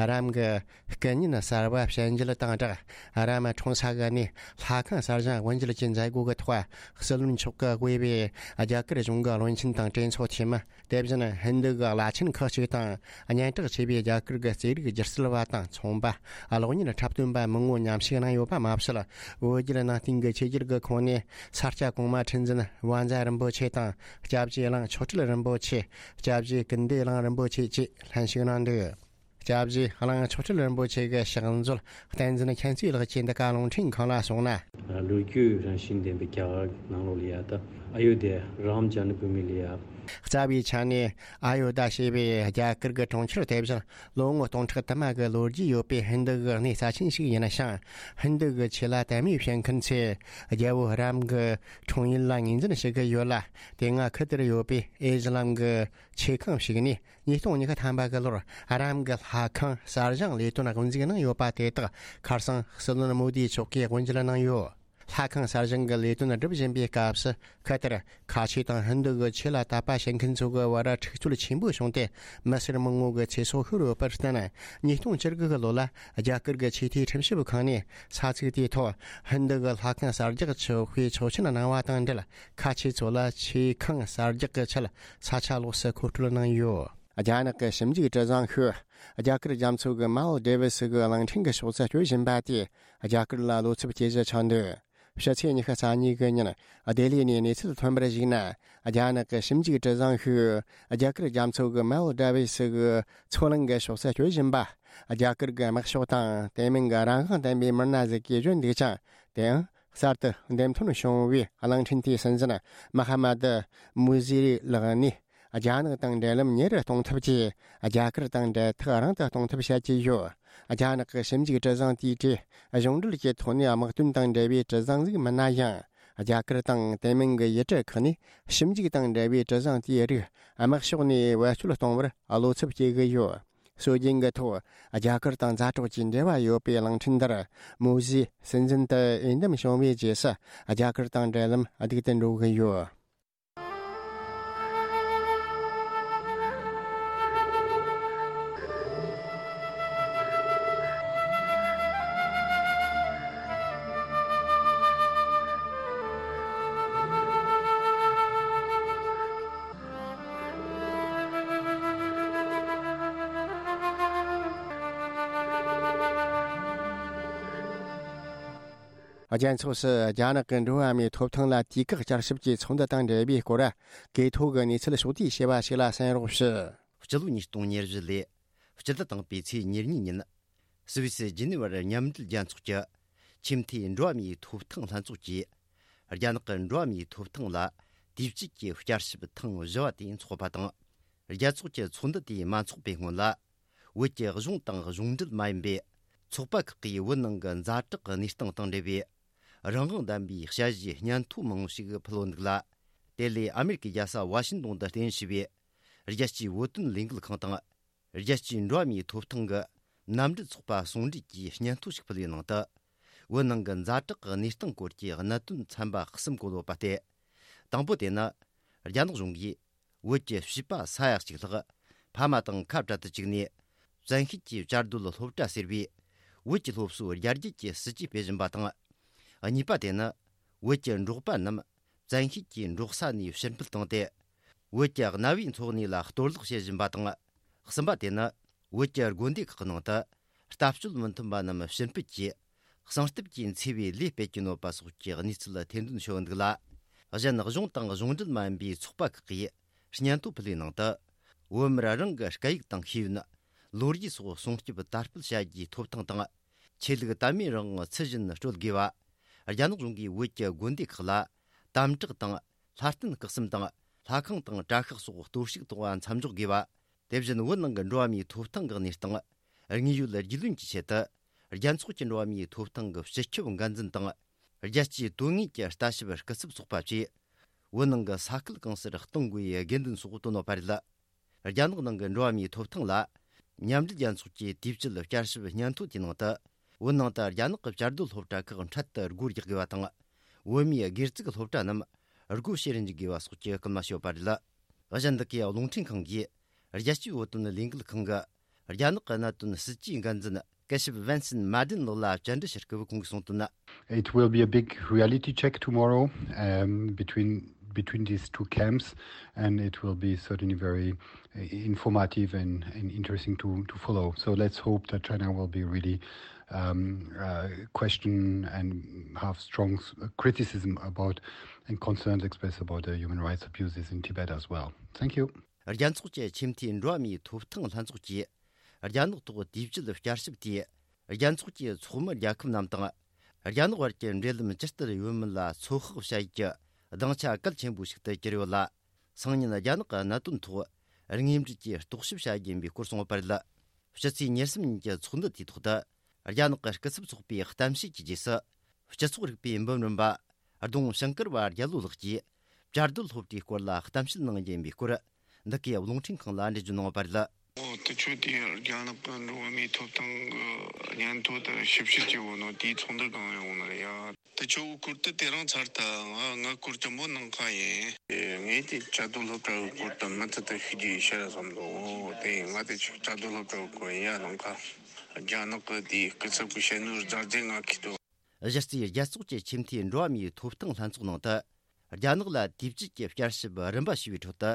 རམ་གྱི་སྐུ་བརྙན་གསར་པ་བྱིན་རྒྱུ་དང་སྦྲགས། རམ་འཁྲུངས་ས་གི་གནས་ལྷ་ཁང་གསར་བཞེངས་དབུ་འབྱེད་ཀྱི་མཛད་སྒོ་གི་ཐོག་སྲིད་བློན་མཆོག་གིས་དབུས་པའི་རྒྱ་གར་གཞུང་གི་བློན་ཆེན་དང་གྲོས་ཚོགས་འཐུས་མི། དེ་བཞིན་ཧིན་རྡུ་གི་བླ་ཆེན་ཁག་ཅིག་དང་། སྙན་གྲགས་ཆེ་བའི་རྒྱ་གར་གྱི་རྩེད་རིགས་སྒྱུ་རྩལ་བ་དང་ཚོང་པ། གློག་བརྙན་འཁྲབ་སྟོན་པ་མང་བོ་མཉམ་ཞུགས་གནང་ཡོད་པ་མ་ཟད། བོད་བརྒྱུད་ནང་བསྟན་གྱི་ཆོས་བརྒྱུད་ཀྱི་ཁོངས་ནས་ས་སྐྱ་གོང་མ་ཁྲི་འཛིན་བཛྲ་རིན་པོ་ཆེ་དང་། སྐྱབས་རྗེ་གླིང་ཆོས་གྲགས་རིན་པོ་ཆེ། སྐྱབས་རྗེ་ཀུན་བདེ་གླིང་རིན་པོ་ཆེ་བཅས་ལྷན་ཞུགས་གནང་འདུག་སྐྱབས་རྗེ་གླིང་ཆོས་གྲགས་རིན་པོ་ཆེ་གི་ཕྱག་མཛོད་བསྟན་འཛིན་མཁྱེན་བརྩེ་ལགས་ཀྱིས་འདི་ག་རླུང་འཕྲིན་ཁང་ལ་གསུངས་ན། ལོ་རྒྱུས་རང་བཞིན་ལྡན་པའི་རྒྱ་གར་ནང་ལོགས་ལ་ཡ་ད་ཨ་ཡོ་དྷ་རམ་ཇནམ་བྷུ་མི་ལ་ཡ། རྩ་བའི་ཆ་ནས་ཨ་ཡོ་དྷ་ཞེས་པའི་རྒྱ་གར་གྱི་གྲོང་ཁྱེར་དེ་བཞིན་ལོ་ངོ་སྟོང་ཕྲག་དུ་མ་གི་ལོ་རྒྱུས་ཡོད་པའི་ཧིན་རྡུ་གི་གནས་རྩ་ཆེན་ཞིག་ཡིན་ཞིང་། ཧིན་རྡུ་གི་ཆོས་ལ་དད་མོས་བྱེད་མཁན་ཚོས་རྒྱལ་པོ་རམ་གྱི་འཁྲུངས་ཡུལ་ལ་ངོས་འཛིན་བྱེད་ཀྱི་ཡོད་ལ། དེ་སྔ་ཁུལ་དེར་ཡོད་པའི་ཨེ་ཛི་ལམ་གྱི་ཆོས་ཁང་ཞིག་ནས། ཉིས་སྟོང་ཉི་ཤུ་ཐམ་པ་གི་ལོར་རམ་གྱི་ལྷ་ཁང་གསར་བཞེངས་ལས་དོན་དབུ་འཛུགས་གནང་ཡོད་པ་དེ་དག་ཁ་སང་སྲིད་བློན་མོ་དིའི་མཆོག་གིས་དབུ་འབྱེད་གནང་ཡོད། ལྷ་ཁང་གསར་བཞེངས་ཀྱི་ལས་དོན་སྒྲུབ་བཞིན་པའི་སྐབས་སུ། ཁ་ཐར་ཁ་ཆེ་དང་ཧིན་རྡུ་གི་ཆོས་ལ་དད་པ་བྱེད་མཁན་ཚོ་གི་བར་འཁྲུག་རྩོད་ཆེན་པོ་བྱུང་སྟེ། མི་སེར་མང་བོ་གི་ཚེ་སྲོག་ཤོར་ཡོད་པར་བརྟེན། ཉིས་སྟོང་བཅུ་དགུ་གི་ལོ་ལ་རྒྱ་གར་གྱི་ཆོས་དད་ཁྲིམས་ཞིབ་ཁང་ནས་ས་ཚིགས་དེའི་ཐོག་ཧིན་རྡུ་གི་ལྷ་ཁང་གསར་རྒྱག་ཆོག་པའི་ཆོག་མཆན་གནང་བ་དང་འབྲེལ། ཁ་ཆེ་ཚོ་ལ་ཆོས་ཁང་གསར་རྒྱག་གི་ཆེད་ས་ཆ་ལོགས་སུ་མཁོ་སྤྲོད་གནང་ཡོད། རྒྱ་ནག་གི་ཞིབ་འཇུག་གྲུ་གཟིངས་ཤིག་རྒྱ་གར་རྒྱ་མཚོ་གི་མལ་ཌི་ཝི་སི་གི་གླིང་ཕྲན་གྱི་ཕྱོགས་སུ་སྐྱོད་བཞིན་པ་དེས་རྒྱ་གར་ལ་བློ་འཚབ་སྐྱེ་གཞི་ཆགས་འདུག་ཕྱི་ཚེས་ཉི་ཤུ་རྩ་གཉིས་གི་ཉིན་ལྡི་ལི་ནས་གནས་ཚུལ་ཐོན་པར་གཞིགས་ན། རྒྱ་ནག་གི་ཞིབ་འཇུག་གྲུ་གཟིངས་ཤིག་རྒྱ་གར་རྒྱ་མཚོ་གི་མལ་ཌི་ཝི་སི་གི་མཚོ་གླིང་གི་ཕྱོགས་སུ་སྐྱོད་བཞིན་པ། རྒྱ་གར་གྱི་དམག་ཤོག་དང་དེ་མིན་གྱི་རང་དབང་ལྡན་པའི་མི་སྣ་ཟིག་གིས་བརྗོད་འདུག་ཅིང་། དེའང་གསར་དུ་འདེམས་ཐོན་བྱུང་བའི་གླིང་ཕྲན་དེའི་སྲིད་འཛིན་མ་ཧ་མ་ཏི་མུ་ཟི་རི་ལགས་ནས། རྒྱ་ནག་དང་འབྲེལ་ལམ་ཉེ་རུ་གཏོང་ཐབས་ཀྱིས་རྒྱ་གར་དང་འབྲེལ་ཐག་རིང་དུ་གཏོང་ཐབས་བྱ་གྱི་ཡོད། རྒྱ་ནག་གི་ཞིབ་འཇུག་གྲུ་གཟིངས་དེའི་གྲས་གཞུང་འབྲེལ་གྱི་ཐོག་ནས་དམག་དོན་དང་འབྲེལ་བའི་གྲུ་གཟིངས་ཟིག་མིན་ན་ཡང་། རྒྱ་གར་དང་དེ་མིན་གྱི་ཡུལ་གྲུ་ཁག་ནས་ཞིབ་འཇུག་དང་འབྲེལ་བའི་གྲུ་གཟིངས་དེའི་རིགས་དམག་ཕྱོགས་ནས་བེད་སྤྱོད་གཏོང་བར་བློ་འཚབ་སྐྱེ་གི་ཡོད། སྲོལ་རྒྱུན་གྱི་ཐོག་རྒྱ་གར་དང་མཛའ་གྲོགས་ཀྱི་འབྲེལ་བ་ཡོད་པའི་གླིང་ཕྲན་འདིར་མུ་ཟིའི་སྲིད་འཛིན་དུ་འོས་འདེམས་བྱུང་བའི་རྗེས་སུ་རྒྱ་གར་དང་འབྲེལ་ལམ་སྡུག་ཏུ་འགྲོ་གི་ཡོད། རྒྱལ་ཚོགས་སུ་རྒྱ་ནག་གི་འགྲོ་བ་མིའི་ཐོབ་ཐང་ལ་དུས་བཀག་བསྐྱར་ཞིབ་ཀྱི་ཚོགས་འདུ་དང་འབྲེལ་བའི་སྐོར་གས་ཐོག་གི་གནས་ཚུལ་ཕྱོགས་བསྡུས་བྱས་པ་ཞིག་ལ་གསན་རོགས་ཞུ། སྤྱི་ལོ་ཉིས་སྟོང་ཉེར་བཞི་ལོའི་སྤྱི་ཟླ་དང་པོའི་ཚེས་ཉེར་གཉིས་ཉིན། སུད་སི་ཇི་ནི་ཝར་མཉམ་འབྲེལ་རྒྱལ་ཚོགས་ཀྱི་ཆེས་མཐོའི་འགྲོ་བ་མིའི་ཐོབ་ཐང་ལྷན་ཚོགས་ཀྱིས། རྒྱ་ནག་གི་འགྲོ་བ་མིའི་ཐོབ་ཐང་ལ་དུས་བཅད་ཀྱི་བསྐྱར་ཞིབ་ཐེངས་བཞི་བ་དེ་འཚོགས་པ་དང་། རྒྱལ་ཚོགས་ཀྱི་ཚོགས་འདུ་དེ་མ་འཚོགས་པའི་སྔོན་ལ། བོད་ཀྱི་གཞུང་དང་གཞུང་འབྲེལ་མ་ཡིན་པའི་ཚོགས་པ་ཁག་གིས་བོད་ནང་གི་ཛ་དྲག་གནས་སྟངས་དང་འབྲེལ་བའི་རང་དབང་ལྡན་པའི་དཔྱད་གཞིའི་སྙན་ཐོ་མང་པོ་ཞིག་ཕུལ་ཡོད་འདུག་ལ། དེ་ལས་ཨ་མེ་རི་ཀའི་རྒྱལ་ས་ཝ་ཤིང་ཏོན་དུ་རྟེན་གཞི་བྱས་པའི་རྒྱལ་སྤྱིའི་བོད་དོན་ལས་འགུལ་ཁང་དང་། རྒྱལ་སྤྱིའི་འགྲོ་བ་མིའི་ཐོབ་ཐང་གི་མནའ་འབྲེལ་ཚོགས་པ་ཟུང་འབྲེལ་གྱིས་སྙན་ཐོ་ཞིག་ཕུལ་བའི་ནང་དུ། བོད་ནང་གི་ཛ་དྲག་གི་གནས་སྟངས་སྐོར་གྱི་གནད་དོན་ཚན་པ་གསུམ་བཀོད་ཡོད་པ་སྟེ། དང་པོ་དེ་ནི། རྒྱ་ནག་གཞུང་གིས་བོད་ཀྱི་བྱིས་པ་ས་ཡ་གཅིག་ལྷག་ཕ་མ་དང་ཁ་བྲལ་དུ་བཅུག་ནས། བཙན་ཤེད་ཀྱིས་བཅའ་སྡོད་སློབ་གྲྭ་ཟེར་བའི་བོད་ཀྱི་སློབ་གསོའི་རྒྱ་སྐྱེད་ཀྱི་སྲིད་ཇུས་སྤེལ་བཞིན་པ་དང་། གཉིས་པ་དེ་ནི། བོད་ཀྱི་འབྲོག་པ་རྣམས་བཙན་ཤེད་ཀྱིས་འབྲོག་ས་ནས་ཕྱིར་འབུད་བཏང་སྟེ། བོད་ཀྱི་གནའ་བོའི་འཚོ་གནས་ལ་གཏོར་བརླག་བྱེད་བཞིན་པ་དང་། གསུམ་པ་དེ་ནི། བོད་ཀྱི་དགོན་སྡེ་ཁག་གི་ནང་དུ་ལྟ་སྤྱོད་མི་མཐུན་པ་རྣམས་ཕྱིར་འབུད་ཀྱིས་གསང་སྟབས་ཀྱིས་འཚེ་བའི་ལས་སྤེལ་གྱིན་ཡོད་པ་སོགས་ཀྱི་གནས་ཚུལ་ཐེར་འདོན་བྱས་ཡོད་འདུག་ལ། གཞན་གཞུང་དང་གཞུང་འབྲེལ་མ་ཡིན་པའི་ཚོགས་པ་ཁག་གིས་སྙན་ཐོ་ཕུལ་བའི་ནང་དུ། བོད་མིར་རང་གི་སྐད་ཡིག་དང་ཤེས་ཡོན། ལོ་རྒྱུས་སོགས་སྲུང་སྐྱོབ་དར་སྤེལ་བྱ་རྒྱུའི་ཐོབ་ཐང་དང་། ཆོས་ལུགས་དད་མོས་རང་དབང་ཚུལ་བཞིན་སྤྲོད་དགོས་པ། རྒྱ་ནག་གཞུང་གིས་བོད་ཀྱི་དགོན་སྡེ་ཁག་ལ་དམ་དྲག་དང་ལྷ་རྟེན་སྐུ་གསུམ་དང་ལྷ་ཁང་དང་གྲྭ་ཤག་སོགས་གཏོར་བཤིག་གཏོང་བ་མཚམས་འཇོག་དགོས་པ། དེ་བཞིན་བོད་ནང་གི་འགྲོ་བ་མིའི་ཐོབ་ཐང་གི་གནས་སྟངས་དངོས་ཡོད་རྒྱུས་ལོན་གྱི་ཆེད་དུ། རྒྱལ་ཚོགས་ཀྱི་འགྲོ་བ་མིའི་ཐོབ་ཐང་གི་སྤྱི་ཁྱབ་འགན་འཛིན་དང་། རྒྱལ་སྤྱིའི་དོན་དངོས་ཀྱི་ལྟ་ཞིབ་སྐུ་ཚབ་ཚོགས་པ་བཅས། བོད་ནང་གི་ས་ཁུལ་གང་སར་གཏོང་དགོས་པའི་དགོས་འདུན་སོགས་བཏོན་ཡོད་པ་རེད། རྒྱ་ནག་ནང་གི་འགྲོ་བ་མིའི་ཐོབ་ཐང་ལ། མཉམ་འབྲེལ་རྒྱལ་ཚོགས་ཀྱི་དུས་བཅད་བསྐྱར་ཞིབ་སྙན་ཐོ་དེའི་ནང་དུ། བོད་ནང་དུ་རྒྱ་ནག་གི་བཅའ་སྡོད་སློབ་གྲྭ་ཁག་འཕྲལ་དུ་སྒོ་རྒྱག་དགོས་པ་དང་། བོད་མིའི་སྒེར་བཙུགས་སློབ་གྲྭ་རྣམས་སྒོ་ཕྱེ་རུ་འཇུག་དགོས་པ་སོགས་ཀྱི་སྐུལ་མ་བྱས་ཡོད་པ་རེད། གཞན་འདི་གའི་རླུང་འཕྲིན་ཁང་གིས། རྒྱལ་སྤྱིའི་བོད་དོན་ལས་འགུལ་ཁང་གི་རྒྱ་ནག་གི་གནད་དོན་སྲིད་ཇུས་འགན་འཛིན་སྐུ་ཞབས་Vincent Madden་ལགས་ལ་བཅར་འདྲི་ཞུ་སྐབས་ཁོང་གིས་གསུངས་དོན། It will be a big reality check tomorrow, um, between between these two camps, and it will be certainly very, uh, informative and, and interesting to, to follow. So let's hope that China will be really, um, uh, question and have strong s- criticism about and concerns expressed about the human rights abuses in Tibet as well. Thank you. རྒྱལ་ཚོགས་ཀྱི་ཆེས་མཐོའི་འགྲོ་བ་མིའི་ཐོབ་ཐང་ལྷན་ཚོགས་ཀྱིས། རྒྱ་ནག་ཐོག་དུས་བཅད་བསྐྱར་ཞིབ་དེས། རྒྱལ་ཚོགས་ཀྱི་ཚོགས་མི་རྒྱལ་ཁབ་རྣམས་དང་། རྒྱ་ནག་བར་གྱི་འབྲེལ་ལམ་ཇི་ལྟར་ཡོད་མེད་ལ་ཚོད་དཔག་བྱ་ཡུལ་གྱི་སྡིངས་ཆ་གལ་ཆེན་པོ་ཞིག་ཏུ་གྱུར་ཡོད་ལ། སང་ཉིན་རྒྱ་ནག་གི་གནད་དོན་ཐོག་དངོས་འབྲེལ་གྱིས་རྟོག་ཞིབ་བྱ་རྒྱུ་ཡིན་པའི་སྐོར་གསུངས་ཡོད་པ་རེད། ཕྱི་ཚེས་ཉེར་གསུམ་ཉིན་གྱི་ཚོགས་འདུ་དེའི་ཐོག་ཏུ། རྒྱ་ནག་གི་སྐུ་ཚབ་ཚོགས་པའི་གཏམ་བཤད་ཀྱི་རྗེས་སུ། སྤྱི་ཚོགས་རིག་པའི་འབུམ་རམས་པ། ལྡོང་ཞིང་ཀར་བ་རྒྱལ་ལོ་ལགས་ཀྱིས། བཅའ་སྡོད་སློབ་གྲྭའི་སྐོར་ལ་གཏམ་བཤད་གནང་རྒྱུ་ཡིན་པའི་སྐོར། འདི་གའི་རླུང་འཕྲིན་ཁང་ལ་འགྲེལ་བརྗོད་གནང་བ་རེད། ཨོ། དེ་ཆོ་དེ་རྒྱ་ནག་གི་འགྲོ་བ་མིའི་ཐོབ་ཐང་གི་སྙན་ཐོ་དེ་ཞིབ་བཤེར་བྱེད་འོ་ནོ་དེའི་ཚོགས་འདུ་གང་ཡོང་ནི་རེད་ཡ། དེ་ཆོ་གི་སྐོར་དེ་དེ་རིང་ཚར་ཐལ། ང་ང་སྐོར་དེ་མོ་ནང་ཁ་ཡིན། ངས་དེ་བཅའ་སྡོད་སློབ་གྲྭ་གི་སྐོར་དེ་མུ་མཐུད་དུ་ཤེས་རྒྱུ་ཡིན་ཤར་བསམ་འདུག་དེ་ང་དེ་ཆོ་བཅའ་སྡོད་སློབ་གྲྭ་གི་སྐོར་ཡིན་ཡ། ནང་ཁ་རྒྱ་ནག་གི་དེའི་སྐུ་ཚབ་གི་བཤད་ནོར་ཛར་ཛེ་ང་ཁི་དོ། གཞི་རྩའི་རྒྱལ་ཚོགས་ཀྱི་ཆེས་མཐོའི་འགྲོ་བ་མིའི་ཐོབ་ཐང་ལྷན་ཚོགས་ནང་དུ། རྒྱ་ནག་ལ་དུས་བཅད་ཀྱི་བསྐྱར་ཞིབ་རིམ་པ་ཞུས་པའི་ཁྲོད་དུ།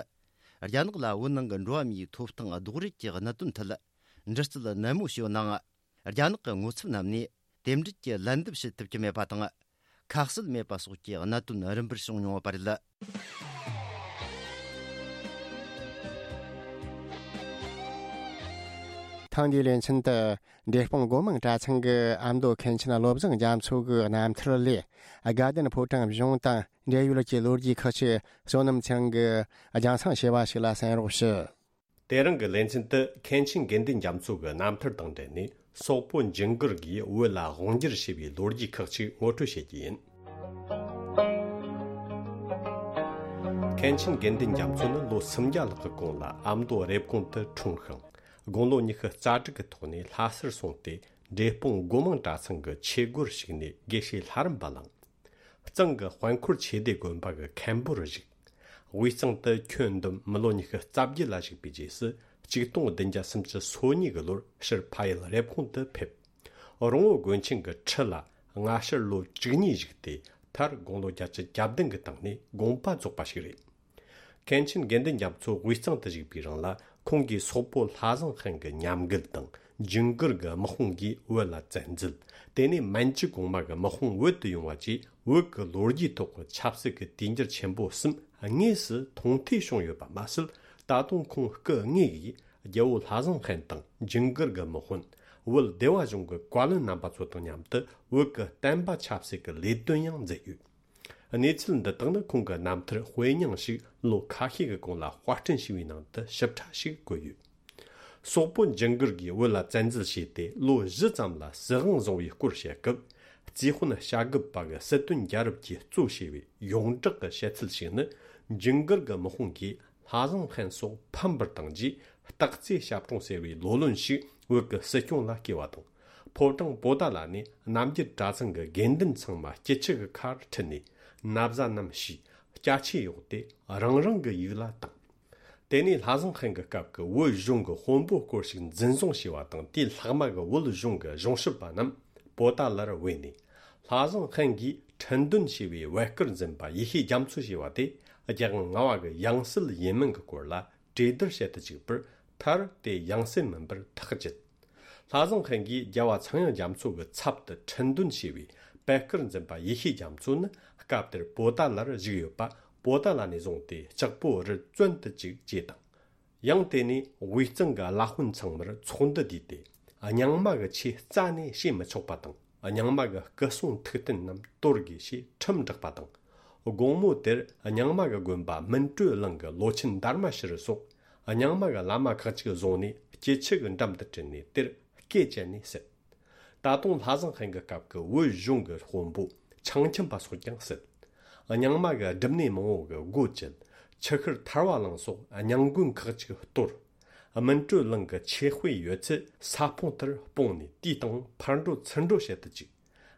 རྒྱ་ནག་ལ་བོད་ནང་གི་འགྲོ་བ་མིའི་ཐོབ་ཐང་རྡོག་རོལ་གྱི་གནད་དོན་ཐད་འདྲི་རྩད་ནན་མོ་བྱས་ཡོད་ནའང་། རྒྱ་ནག་གི་ངོ་ཚབ་རྣམས་ནས་རྟེན་འབྲེལ་གྱི་ལན་འདེབས་བྱེད་ཐུབ་ཀྱི་མེད་པ་དང་། ཁ་གསལ་མེད་པ་སོགས་ཀྱི་གནད་དོན་རིམ་པར་བྱུང་མྱོང་བ་རེད། ཐེངས་འདིའི་ལེ་ཚན་དུ། འབྲས་སྤུངས་སྒོ་མང་གྲྭ་ཚང་གི་ཨ་མདོ་མཁན་ཆེན་བློ་བཟང་རྒྱ་མཚོ་གི་རྣམ་ཐར་ལས། དགའ་ལྡན་ཕོ་བྲང་གཞུང་དང་འབྲེལ་ཡོད་ཀྱི་ལོ་རྒྱུས་ཁག་ཅིག་བསོད་ནམས་ཚང་གིས་རྒྱང་སྲིང་ཞུས་པ་ཞིག་ལ་གསན་རོགས་ཞུ། དེ་རིང་གི་ལེ་ཚན་དུ་མཁན་ཆེན་དགེ་འདུན་རྒྱ་མཚོ་གི་རྣམ་ཐར་དང་འབྲེལ་ནས། སོག་པོ་ཇིང་གིར་གྱིས་བོད་ལ་དབང་སྒྱུར་བྱས་པའི་ལོ་རྒྱུས་ཁག་ཅིག་ངོ་སྤྲོད་བྱེད་ཀྱི་ཡིན། མཁན་ཆེན་དགེ་འདུན་རྒྱ་མཚོ་ནི་ལོ་སུམ་བརྒྱ་ལྷག་གི་གོང་ལ་ཨ་མདོ་རེབ་གོང་དུ་འཁྲུངས་ཤིང་། དགུང་ལོ་ཉི་ཤུ་རྩ་དྲུག་གི་ཐོག་ནས་ལྷ་སར་སོང་སྟེ། འབྲས་སྤུངས་སྒོ་མང་གྲྭ་ཚང་གི་ཆོས་སྒོར་ཞུགས་ནས་དགེ་བཤེས་ལྷ་རམས་པ་བླངས། གཙང་གི་དཔལ་འཁོར་ཆོས་སྡེ་དགོན་པ་གི་མཁན་པོར་བཞུགས། དབུས་གཙང་དུ་ཁྱོན་བསྡོམས་མི་ལོ་ཉི་ཤུ་རྩ་བརྒྱད་ལ་བཞུགས་པའི་རྗེས་སུ། ཆིག་སྟོང་བདུན་བརྒྱ་སུམ་ཅུ་སོ་གཉིས་ཀྱི་ལོར་ཕྱིར་ཕ་ཡུལ་རེབ་གོང་དུ་ཕེབས། རོང་བོ་དགོན་ཆེན་གྱི་ཁྲི་ལ་སྔ་ཕྱིར་ལོ་བཅུ་གཉིས་བཞུགས་ཏེ། མཐར་དགུང་ལོ་བརྒྱད་ཅུ་གྱ་བདུན་གྱི་སྟེང་ནས་དགོངས་པ་རྫོགས་པ་ཞིག་རེད། མཁན་ཆེན་དགེ་འདུན་རྒྱ་མཚོ་དབུས་གཙང་དུ་བཞུགས་པའི་རིང་ལ། ཁོང་གིས་སོག་པོ་ལྷ་བཟང་ཧན་གྱི་ཉམས་རྒུད་དང་། ཇིང་གིར་གྱི་དམག་དཔུང་གིས་བོད་ལ་བཙན་འཛུལ། དེ་ནས་མན་ཇུ་གོང་མ་གི་དམག་དཔུང་བོད་དུ་ཡོང་བ་བཅས། བོད་ཀྱི་ལོ་རྒྱུས་ཐོག་གི་ཆབ་སྲིད་ཀྱི་དུས་འགྱུར་ཆེན་པོ་གསུམ་དངོས་སུ་མཐོང་ཐོས་བྱུང་ཡོད་པ་མ་ཟད། ད་དུང་ཁོང་སྐུ་དངོས་ཀྱིས་རྒྱལ་བོ་ལྷ་བཟང་ཧན་དང་ཇིང་གིར་གྱི་དམག་དཔོན། བོད་སྡེ་བ་གཞུང་གི་བཀའ་བློན་རྣམ་པ་ཚོ་དང་མཉམ་དུ་བོད་ཀྱི་བསྟན་པ་ཆབ་སྲིད་ཀྱི་ལས་དོན་ཡང་མཛད་ཡོད། གནས་ཚུལ་འདི་དག་ནི་ཁོང་གི་རྣམ་ཐར་དཔེ་རྙིང་ཞིག་ལོ་ཁ་ཤས་ཀྱི་གོང་ལ་དཔར་སྐྲུན་བྱས་པའི་ནང་དུ་ཞིབ་ཕྲ་ཞིག་བཀོད་ཡོད། སོག་པོ་ཇིང་གིར་གྱིས་བོད་ལ་བཙན་འཛུལ་བྱས་ཏེ་ལོ་བཞི་ཙམ་ལ་སྲིད་དབང་བཟུང་བའི་སྐོར་བཤད་སྐབས། རྩིས་དཔོན་བྱ་རྒོད་པ་གི་སྲིད་དོན་རྒྱལ་རབས་ཀྱིས་གཙོ་བྱས་པའི་ཡོངས་གྲགས་ཀྱི་བཤད་ཚུལ་ཞིག་ནི། ཇིང་གིར་གྱི་དམག་དཔུང་གིས་ལྷ་བཟང་ཧན་སོགས་ཕམ་པར་བཏང་རྗེས། སྟག་རྩེ་ཞབས་དྲུང་ཟེར་བའི་ལོ་ལོན་ཞིག་བོད་ཀྱི་སྲིད་སྐྱོང་ལ་བསྐོས་པ་དང་། ཕོ་བྲང་པོ་ཏཱ་ལ་ནས་རྣམ་རྒྱལ་གྲྭ་ཚང་གི་དགེ་འདུན་ཚང་མ་སྐྱིད་ཆུ་གི་ཁར་ཁྲིད་ནས། ན་བཟའ་རྣམས་ཕྱིས། སྐྱ་ཆས་གཡོགས་ཏེ་རང་རང་གི་ཡུལ་ལ་བཏང་། དེ་ནས་ལྷ་བཟང་ཧན་གྱི་སྐབས་ཀྱི་བོད་གཞུང་གི་དཔོན་པོ་སྐོར་ཞིག་འཛིན་བཟུང་བྱས་པ་དང་། དེའི་ལྷག་མ་གི་བོད་གཞུང་གི་གཞུང་ཞབས་པ་རྣམས་པོ་ཏཱ་ལར་བོས་ནས། ལྷ་བཟང་ཧན་གྱིས་ཁྲི་འདོན་བྱས་པའི་བོད་སྐུར་འཛིན་པ་ཡེ་ཤེས་རྒྱ་མཚོ་ཞེས་པ་དེ་རྒྱལ་དབང་ལྔ་པ་གི་ཡང་སྲིད་ཡིན་མིན་གྱི་སྐོར་ལ་གྲོས་བསྡུར་བྱེད་དུ་བཅུག་པར། མཐར་དེ་ཡང་སྲིད་མིན་པར་ཐག་བཅད། ལྷ་བཟང་ཧན་གྱིས་རྒྱལ་བ་ཚངས་དབྱངས་རྒྱ་མཚོ་གི་ཚབ་ཏུ་ཁྲི་འདོན་བྱས་པའི་བོད་སྐུར་འཛིན་པ་ཡེ་ཤེས་རྒྱ་མཚོ་ནི་སྐབས་དེར་པོ་ཏཱ་ལར་བཞུགས་ཡོད་པ། པོ་ཏཱ་ལ་ནས་བཟུང་སྟེ་ལྕགས་པོ་རི་བཙོན་དུ་བཅུག་ཅེས་དང་། ཡང་དེ་ནས་དབུས་གཙང་གི་བླ་དཔོན་ཚང་མར་ཚོགས་འདུ་བསྡུས་ཏེ། རྙིང་མ་གི་ཆོས་རྩ་ནས་བྱེད་མི་ཆོག་པ་དང་། རྙིང་མ་གི་སྐུ་སྲུང་ཐུགས་རྟེན་རྣམས་གཏོར་དགོས་ཞེས་ཁྲིམས་བསྒྲགས་པ་དང་། དགོང་མོ་དེར་རྙིང་མ་གི་དགོན་པ་སྨིན་གྲོལ་གླིང་གི་ལོ་ཆེན་དར་མ་ཤི་རི་སོགས་རྙིང་མ་གི་བླ་མ་ཁག་ཅིག་བཟུང་ནས་སྐྱིད་ཆུ་གི་འགྲམ་དུ་ཁྲིད་ནས་དེར་སྐེ་བཅད་ནས་བསད། ད་དུང་ལྷ་བཟང་ཧན་གྱི་སྐབས་ཀྱི་བོད་གཞུང་གི་དཔོན་པོ་ཆང་ཁྱིམ་པ་སོགས་ཀྱང་བསད། རྙིང་མ་གི་སྒྲུབ་གནས་མང་བོ་གི་སྒོ་བཅད། ཆུ་ཤུར་ཐར་བ་གླིང་སོགས་རྙིང་དགོན་ཁག་ཅིག་གཏོར། སྨིན་གྲོལ་གླིང་གི་ཆོས་དཔེ་ཡོད་ཚད་ས་སྤུངས་ལྟར་སྤུངས་ནས་དུས་དང་ཕར་འགྲོ་ཚུར་འགྲོ་བྱེད་དུ་བཅུག།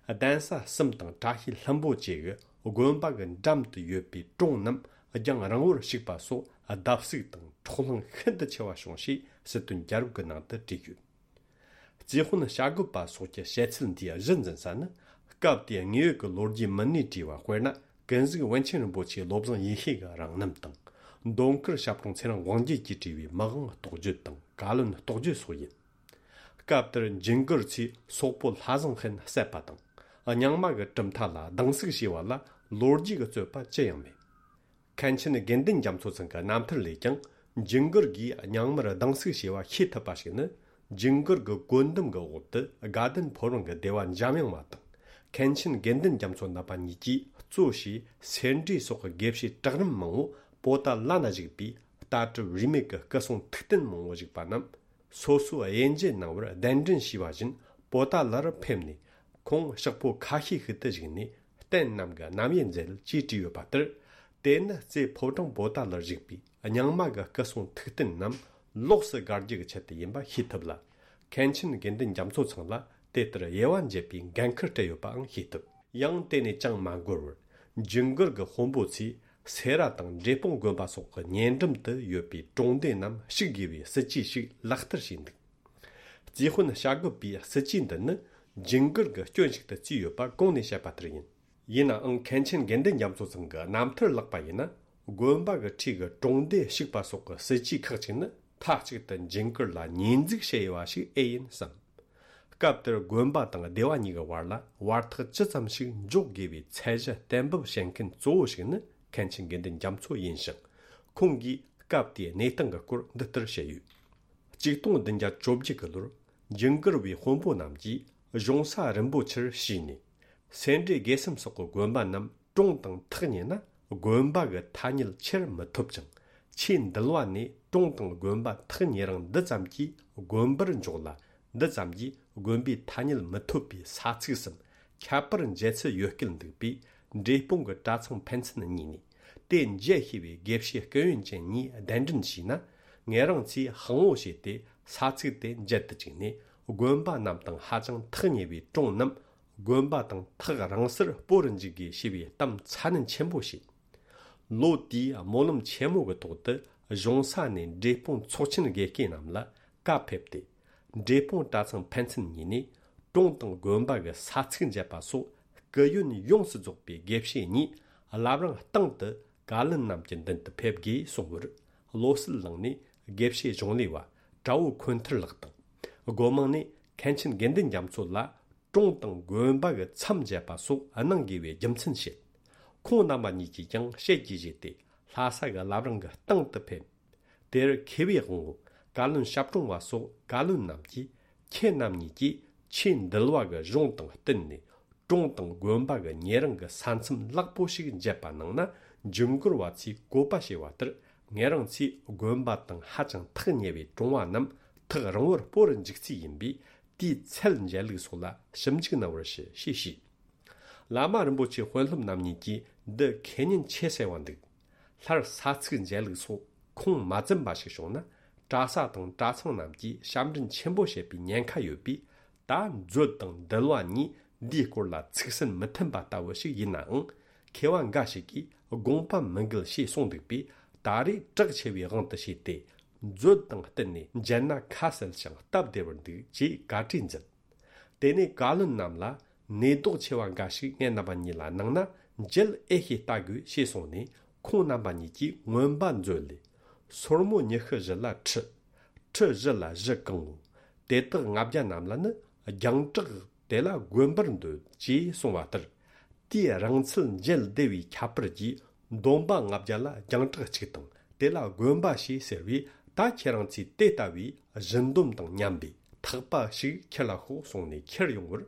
གདན་ས་གསུམ་དང་བཀྲ་ཤིས་ལྷུན་པོ་བཅས་ཀྱི་དགོན་པ་གི་འགྲམ་དུ་ཡོད་པའི་གྲོང་རྣམས་རྒྱང་རིང་བོར་བཤིག་པ་སོགས་བརྡབ་གསིག་དང་འཕྲོག་ལྷིང་ཤིན་ཏུ་ཆེ་བ་བྱུང་ཞེས་སྲིད་དོན་རྒྱལ་རབས་ཀྱི་ནང་དུ་བྲིས་ཡོད། རྩིས་དཔོན་བྱ་རྒོད་པ་སོགས་ཀྱི་བཤད་ཚུལ་འདིའི་གཞི་འཛིན་ས་ནི། སྐབས་དེའི་དངོས་ཡོད་ཀྱི་ལོ་རྒྱུས་མི་སྣས་བྲིས་པ། དཔེར་ན། ཀུན་གཟིགས་པཎ་ཆེན་རིན་པོ་ཆེ་བློ་བཟང་ཡེ་ཤེས་ཀྱི་རང་རྣམ་དང་། མདོ་མཁར་ཞབས་དྲུང་ཚེ་རིང་དབང་རྒྱལ་གྱིས་བྲིས་པའི་མི་དབང་རྟོགས་བརྗོད་དང་བཀའ་བློན་རྟོགས་བརྗོད་སོགས་ཡིན། སྐབས་དེར་ཇིང་གིར་ཚོས་སོག་པོ་ལྷ་བཟང་ཧན་བསད་པ་དང་། རྙིང་མ་གི་གྲུབ་མཐའ་ལ་སྡང་ཟུག་བྱས་པ་ལ་ལོ་རྒྱུས་ཀྱི་རྩོད་པ་ཅི་ཡང་མེད། མཁན་ཆེན་དགེ་འདུན་རྒྱ་མཚོ་ཚང་གི་རྣམ་ཐར་ལས་ཀྱང་། ཇིང་གིར་གྱིས་རྙིང་མར་སྡང་ཟུག་བྱས་པ་ཤེས་ཐུབ་པ་ཞིག་ནི། ཇིང་གིར་གྱི་བཀོད་འདོམས་ཀྱི་འོག་ཏུ་དགའ་ལྡན་ཕོ་བྲང་གི་སྡེ་བ་འཇམ་དབྱངས་པ་དང་། མཁན་ཆེན་དགེ་འདུན་རྒྱ་མཚོ་རྣམ་པ་གཉིས་ཀྱིས་གཙོ་བྱས་སེ་འབྲས་སོགས་ཀྱི་དགེ་བཤེས་གྲལ་རིམ་མང་བོ་པོ་ཏཱ་ལ་ན་བཞུགས་པའི་ལྟ་གྲུབ་རིས་མེད་ཀྱི་སྐུ་སྲུང་ཐུགས་རྟེན་མང་བོ་བཞུགས་པ་རྣམས། སོ་སོའི་དབྱེ་འབྱེད་གནང་བར་གདན་འདྲེན་བྱས་པ་བཞིན་པོ་ཏཱ་ལར་ཕེབས་ནས། ཁོང་ཕྱག་པོ་ཁ་ཤས་ཤིག་ཏུ་བཞུགས་ནས་རྟེན་རྣམས་ཀྱི་རྣམ་དབྱེ་མཛད་ཅེས་བྲིས་ཡོད་པ་ལྟར། དེ་ནི་རྩེ་ཕོ་བྲང་པོ་ཏཱ་ལར་བཞུགས་པའི་རྙིང་མ་གི་སྐུ་སྲུང་ཐུགས་རྟེན་རྣམས་ལོགས་སུ་དགར་རྒྱུ་གི་ཆེད་དུ་ཡིན་པ་ཤེས་ཐུབ་ལ། མཁན་ཆེན་དགེ་འདུན་རྒྱ་མཚོ་ཚང་ལ་དེ་ལྟར་དབྱེ་བ་འབྱེད་པའི་འགན་ཁུར་སྤྲད་ཡོད་པའང་ཤེས་ཐུབ། ཡང་དེ་ནས་ཅང་མ་འགོར་བར། ཇིང་གིར་གྱི་དཔོན་པོ་ཚོས་སེ་ར་དང་འབྲས་སྤུངས་དགོན་པ་སོགས་ཀྱི་ཉེ་འགྲམ་དུ་ཡོད་པའི་གྲོང་སྡེ་རྣམས་བཤིག་དགོས་པའི་སྲིད་ཇུས་ཤིག་ལག་བསྟར་བྱས་འདུག། རྩིས་དཔོན་བྱ་རྒོད་པའི་སྲིད་ཇུས་འདི་ནི་ཇིང་གིར་གྱི་སྐྱོན་ཞིག་ཏུ་བརྩིས་ཡོད་པ་གོང་ནས་བཤད་པ་ལྟར་ཡིན། ཡིན་ནའང་མཁན་ཆེན་དགེ་འདུན་རྒྱ་མཚོ་ཚང་གི་རྣམ་ཐར་ལགས་པ་ཡིན་ན། དགོན་པ་གི་འཁྲིས་ཀྱི་གྲོང་སྡེ་བཤིག་པ་སོགས་ཀྱི་སྲིད་ཇུས་ཁག་ཅིག་ནི་མཐའ་གཅིག་ཏུ་འཇིགས་སྐུལ་ལ་ཉེས་འཛུགས་བྱས་ཡོད་པ་ཞིག་ཨེ་ཡིན་བསམ། སྐབས་དེར་དགོན་པ་དང་སྡེ་བ་གཉིས་ཀྱི་བར་ལ་བར་ཐག་ཅི་ཙམ་ཞིག་འཇོག་དགོས་པའི་ཚད་གཞི་གཏན་འབེབས་བྱེད་མཁན་གཙོ་བོ་ཞིག་ནི་མཁན་ཆེན་དགེ་འདུན་རྒྱ་མཚོ་ཡིན་ཞིང་། ཁོང་གིས་སྐབས་དེའི་གནས་སྟངས་ཀྱི་སྐོར་འདི་ལྟར་བཤད་ཡོད། ཆིག་སྟོང་བདུན་བརྒྱ་བཅོ་བརྒྱད་ཀྱི་ལོར་ཇུན་གར་བའི་དཔོན་པོ་རྣམས་ཀྱིས་གཞུང་ས་རིན་པོ་ཆེར་ཞུས་ནས། སེ་འབྲས་དགེ་གསུམ་སོགས་ཀྱི་དགོན་པ་རྣམས་གྲོངས་དང་ཐག་ཉེ་ན། དགོན་པ་གི་ཐ་སྙད་ཁྱེར་མི་ཐུབ་ཅིང་། ཆོས་འདུལ་བ་ནས་གྲོངས་དང་དགོན་པ་ཐག་ཉེ་རིང་འདི་ཙམ་གྱིས་དགོན་པར་འཇོག་ལ། འདི་ཙམ་གྱིས་དགོན་པའི་ཐ་སྙད་མི་ཐོབ་པའི་ས་ཚིགས་སམ། ཁྱད་པར་འབྱེད་ཚུལ་ཡོད་སྐད་འདུག་པས། འབྲས་སྤུངས་ཀྱི་གྲྭ་ཚང་ཕན་ཚུན་གཉིས་ནས། དེ་འབྱེད་ཤེས་པའི་དགེ་བཤེས་སྐུ་ཡོན་ཅན་གཉིས་གདན་འདྲེན་བྱས་ན། ངེད་རང་ཚོས་དཔང་པོ་བྱས་ཏེ། ས་ཚིགས་དེ་འབྱེད་དུ་བཅུག་ནས། དགོན་པ་རྣམས་དང་ཧ་ཅང་ཐག་ཉེ་བའི་གྲོང་རྣམས། དགོན་པ་དང་ཐག་རིང་སར་སྤོ་རུ་འཇུག་དགོས་ཞེས་པའི་གཏམ་ཚ་ནན་ཆེན་པོ་བྱས། ལོ་དེའི་སྨོན་ལམ་ཆེན་མོ་གི་ཐོག་ཏུ། གཞུང་ས་ནས་འབྲས་སྤུངས་ཚོགས་ཆེན་དགེ་བསྐོས་རྣམས་ལ་བཀའ་ཕེབས་ཏེ། འབྲས་སྤུངས་གྲྭ་ཚང་ཕན་ཚུན་གཉིས་ནས། གྲོང་དང་དགོན་པ་གི་ས་ཚིགས་འབྱེད་པ་སོགས་སྐུ་ཡོན་ཡོངས་སུ་རྫོགས་པའི་དགེ་བཤེས་གཉིས་བླ་བྲང་སྟེང་དུ་བཀའ་བློན་རྣམས་ཀྱི་མདུན་དུ་ཕེབས་དགོས་གསུངས་པར། བློ་གསལ་གླིང་ནས་དགེ་བཤེས་གཞུང་ལས་པ་གྲྭ་བོ་འཁོན་ཐར་ལགས་དང་། སྒོ་མང་ནས་མཁན་ཆེན་དགེ་འདུན་རྒྱ་མཚོ་ལ་གྲོང་དང་དགོན་པ་གི་མཚམས་འབྱེད་པ་སོགས་གནང་དགོས་པའི་རྒྱུ་མཚན་བཤད། ཁོང་རྣམ་པ་གཉིས་ཀྱིས་ཀྱང་ཞལ་གྱིས་བཞེས་ཏེ། ལྷ་ས་གི་བླ་བྲང་གི་སྟེང་དུ་ཕེབས། དེར་མཁས་པའི་དབང་པོ་བཀའ་བློན་ཞབས་དྲུང་བ་སོགས་བཀའ་བློན་རྣམས་ཀྱིས། ཁྱེད་རྣམ་གཉིས་ཀྱིས་ཆོས་འདུལ་བ་གི་གཞུང་དང་བསྟུན་ནས། གྲོང་དང་དགོན་པ་གི་ཉེ་རིང་གི་ས་མཚམས་ལེགས་པོ་ཞིག་འབྱེད་པ་གནང་ན། ཇུན་གར་བ་ཚོས་བཀོད་པ་བྱས་པ་ལྟར། ངེད་རང་ཚོས་དགོན་པ་དང་ཧ་ཅང་ཐག་ཉེ་བའི་གྲོང་བ་རྣམས་ཐག་རིང་བོར་སྤོ་རུ་འཇུག་རྩིས་ཡིན་པས། དེའི་ཚད་འཇལ་ལུགས་སོགས་ལ་ཞིབ་འཇུག་གནང་བར་ཞུ་ཞེས་ཞུས། བླ་མ་རིན་པོ་ཆེ་དཔོན་སློབ་རྣམ་གཉིས་ཀྱིས་འདི་ཁས་ཉན་ཆེ་གསལ་བ་འདུག། སླར་ས་ཚིགས་འཇལ་ལུགས་སོགས་ཁུངས་མ་འཛིན་པ་ཞིག་བྱུང་ན། གྲྭ་ས་དང་གྲྭ་ཚང་རྣམས་ཀྱིས་ཞབས་འདྲེན་ཆེན་པོ་བྱེད་པའི་ཉེན་ཁ་ཡོད་པས། ད་མཛོད་དང་འདུལ་བ་གཉིས་འདིའི་སྐོར་ལ་ཚིག་སྲོལ་མི་མཐུན་པ་ལྟ་བུ་ཞིག་ཡིན་ནའང་། མཁས་པ་འགའ་ཞིག་གིས་དགོངས་པ་མི་འགལ་ཞེས་གསུངས་འདུག་པས། ད་རེས་གྲགས་ཆེ་བའི་དབང་དུ་བྱས་ཏེ། མཛོད་དང་བསྟུན་ནས་འཇལ་ན་ཁ་གསལ་ཞིང་སྟབས་བདེ་བར་འདུག་ཅེས་བཀའ་གྲོས་མཛད། དེ་ནས་བཀའ་བློན་རྣམས་ལ་ནུས་ལྡོག་ཆེ་བ་འགའ་ཞིག་ངེད་རྣམ་པ་གཉིས་ལ་གནང་ན། མཇལ་ཨེ་ཤེས་ལྟ་དགོས་ཞེས་གསུངས་ནས། ཁོང་རྣམ་པ་གཉིས་ཀྱིས་མངོན་པ་མཛོད་ལས། སོར་མོ་ཉི་ཤུ་བཞི་ལ་ཁྲི། ཁྲི་བཞི་ལ་བཞི་གང་ངོ་། དེ་དག་ལྔ་བརྒྱ་རྣམས་ལ་ནི། རྒྱང་གྲགས་དེ་ལ་དགོན་པར་འདོད་ཅེས་གསུངས་པ་ལྟར། དེའི་རིང་ཚད་མཇལ་བདེ་བའི་ཁྱད་པར་གྱིས། འདོན་པ་ལྔ་བརྒྱ་ལ་རྒྱང་གྲགས་གཅིག་དང་། དེ་ལ་དགོན་པ་ཞེས་ཟེར་བས། ད་ཁྱེད་རང་ཚོས་དེ་ལྟ་བུའི་བཞི་འདོམ་དང་མཉམ་པའི་ཐག་པ་ཞིག་ཁྱེར་ལ་ཤོག་གསུངས་ནས་ཁྱེར་ཡོང་བར།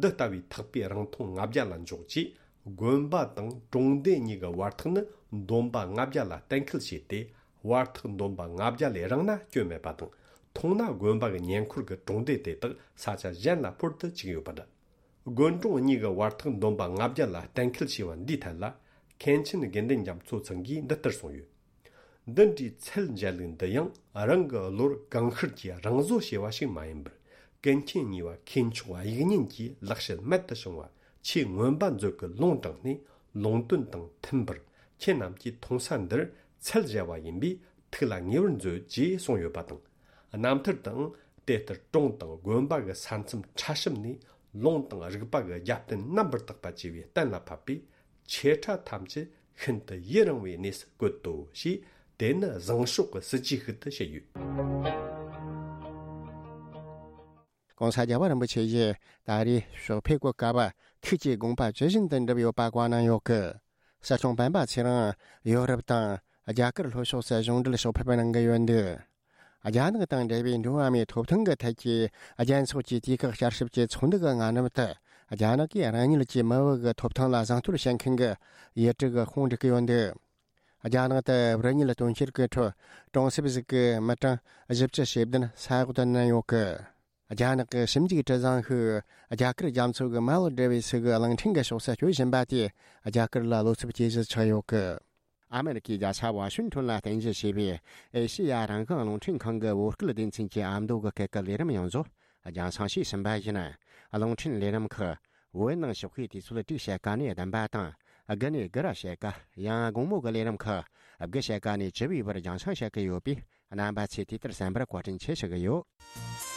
འདི་ལྟ་བུའི་ཐག་པའི་རིང་ཐུང་ལྔ་བརྒྱ་ལ་འཇོག་ཅེས། དགོན་པ་དང་གྲོང་སྡེ་གཉིས་ཀྱི་བར་ཐག་ནི་འདོམ་པ་ལྔ་བརྒྱ་ལ་གཏན་འཁེལ་བྱས་ཏེ། བར་ཐག་འདོམ་པ་ལྔ་བརྒྱ་ལས་རིང་ན་སྐྱོན་མེད་པ་དང་། ཐུང་ན་དགོན་པ་གི་ཉེ་འཁོར་གྱི་གྲོང་སྡེ་དེ་དག་ས་ཆ་གཞན་ལ་འཕུར་དུ་བཅུག་ཡོད་པ་འདྲ། དགོན་གྲོང་གཉིས་ཀྱི་བར་ཐག་འདོམ་པ་ལྔ་བརྒྱ་ལ་གཏན་འཁེལ་བྱས་པ་འདིའི་ཐད་ལ། མཁན་ཆེན་དགེ་འདུན་རྒྱ་མཚོ་ཚང་གིས་འདི་ལྟར་གསུངས་ཡོད། འདི་འདྲའི་ཚད་འཇལ་ལུགས་འདི་ཡང་རང་གི་བློར་གང་ཤར་གྱིས་རང་བཟོ་བྱས་པ་ཞིག་མ་ཡིན་པར། ཀུན་མཁྱེན་གཉིས་པ་མཁས་མཆོག་དབྱིག་གཉེན་གྱིས་ལེགས་བཤད་རྨད་དུ་བྱུང་བ་ཆོས་མངོན་པ་མཛོད་ཀྱི་ལུང་དྲངས་ནས། ལུང་དོན་དང་མཐུན་པར་ཁྱེད་རྣམས་ཀྱིས་མཐོང་ས་འདིར་ཚད་འཇལ་བ་ཡིན་པས། ཐུགས་ལ་ངེས་པར་མཛོད་ཅེས་གསུངས་ཡོད་པ་དང་། རྣམ་ཐར་དུའང་དེ་ལྟར་གྲོང་དང་དགོན་པ་གི་ས་མཚམས་ཕྲ་ཞིབ་ནས། ལུང་དང་རིགས་པ་གི་རྒྱབ་རྟེན་རྣམ་པར་དག་པ་བཅས་པས་གཏན་ལ་ཕབ་པས། ཆེ་ཕྲ་ཐམས་ཅད་ཤིན་ཏུ་ཡུན་རིང་བའི་གནས་སུ་བཀོད་དོ་ཞེས། དེ་ནི་བཟང་ཕྱོགས་ཀྱི་སྲིད་ཇུས་ཤིག་ཏུ་བཤད་ཡོད། ༸གོང་ས་རྒྱལ་བ་རིན་པོ་ཆེ་ཡིས་ད་རེས་ཕྱག་ཕེབས་ཀྱི་སྐབས། ཐུགས་ཀྱི་དགོངས་པ་ཇི་བཞིན་དུ་འགྲུབ་ཡོད་པ་བཀའ་གནང་ཡོད་སྐད། སྲིད་སྐྱོང་སྤེན་པ་ཚེ་རིང་ཡོ་རོབ་དང་རྒྱ་གར་ལྷོ་ཕྱོགས་སུ་གཞུང་འབྲེལ་ཕྱག་ཕེབས་གནང་གི་ཡོད་འདུག། རྒྱ་ནག་དང་འབྲེལ་བའི་འགྲོ་བ་མིའི་ཐོབ་ཐང་གི་ཐད་ཀྱི་རྒྱལ་ཚོགས་ཀྱི་དུས་བཀག་བསྐྱར་ཞིབ་ཀྱི་ཚོགས་འདུ་གི་སྔ་ནུབ་ཏུ། རྒྱ་ནག་གིས་རང་ཉིད་ཀྱི་མི་བུ་གི་ཐོབ་ཐང་ལ་བཟང་བསྟོད་བྱེད་མཁན་གྱི་ཡུལ་གྲུ་གི་ཁོངས་འགྲིག་གི་ཡོད་འདུག། རྒྱ་ནག་ཏུ་བུད་མེད་དོན་གཅོད་ཀྱི་ཁྲོད་གྲོང་གསེབ་ཟིག་གི་མི་གྲངས་བཞི་བཅུ་ཞེ་བདུན་ས་འོག་ཏུ་མནན་ཡོད་གི། རྒྱ་ནག་གི་ཞིབ་འཇུག་གྲུ་གཟིངས་ཤིག་རྒྱ་གར་རྒྱ་མཚོ་གི་མར་བོ་ཌི་བྷི་སི་གི་གླིང་ཕྲན་གྱི་ཕྱོགས་སུ་བསྐྱོད་བཞིན་པ་དེས་རྒྱ་གར་ལ་བློ་འཚབ་ཇེ་ཆེར་ཆགས་ཡོད་གི། ཨ་མེ་རི་ཁའི་རྒྱལ་ས་ཝ་ཤིང་ཊོན་ལ་རྟེན་གཞི་བྱས་པའི་ཨེ་ཤེ་ཡ་རང་དབང་རླུང་འཕྲིན་ཁང་གི་བོད་སྐད་སྡེ་ཚན་གྱི་ཨ་མདོ་གི་སྐད་ཀྱི་ལས་རིམ་ཡོངས་རྫོགས་རྒྱང་སྲིང་བྱས་ཟིན་པ་ཡིན། རླུང་འཕྲིན་ལས་རིམ་ཁག་བོད་ནང་ཕྱོགས་ཁའི་དུས་ཚོད་དྲུག་ཕྱེད་ཀ་ནས་བདུན་པ་དང་། དགུ་ནས་དགུ་ར་ཕྱེད་ཀ། ཡང་དགོང་མོ་གི་ལས་རིམ་ཁག་དགུ་ཕྱེད་ཀ་ནས་བཅུ་པའི་བར་རྒྱང་སྲིང་བྱེད་ཀྱི་ཡོད་པས། རྣམ་པ་ཚོས་དུས་ལྟར་གསན་པར་བཀའ་དྲིན་ཆེ་ཞུ་གི་ཡོད།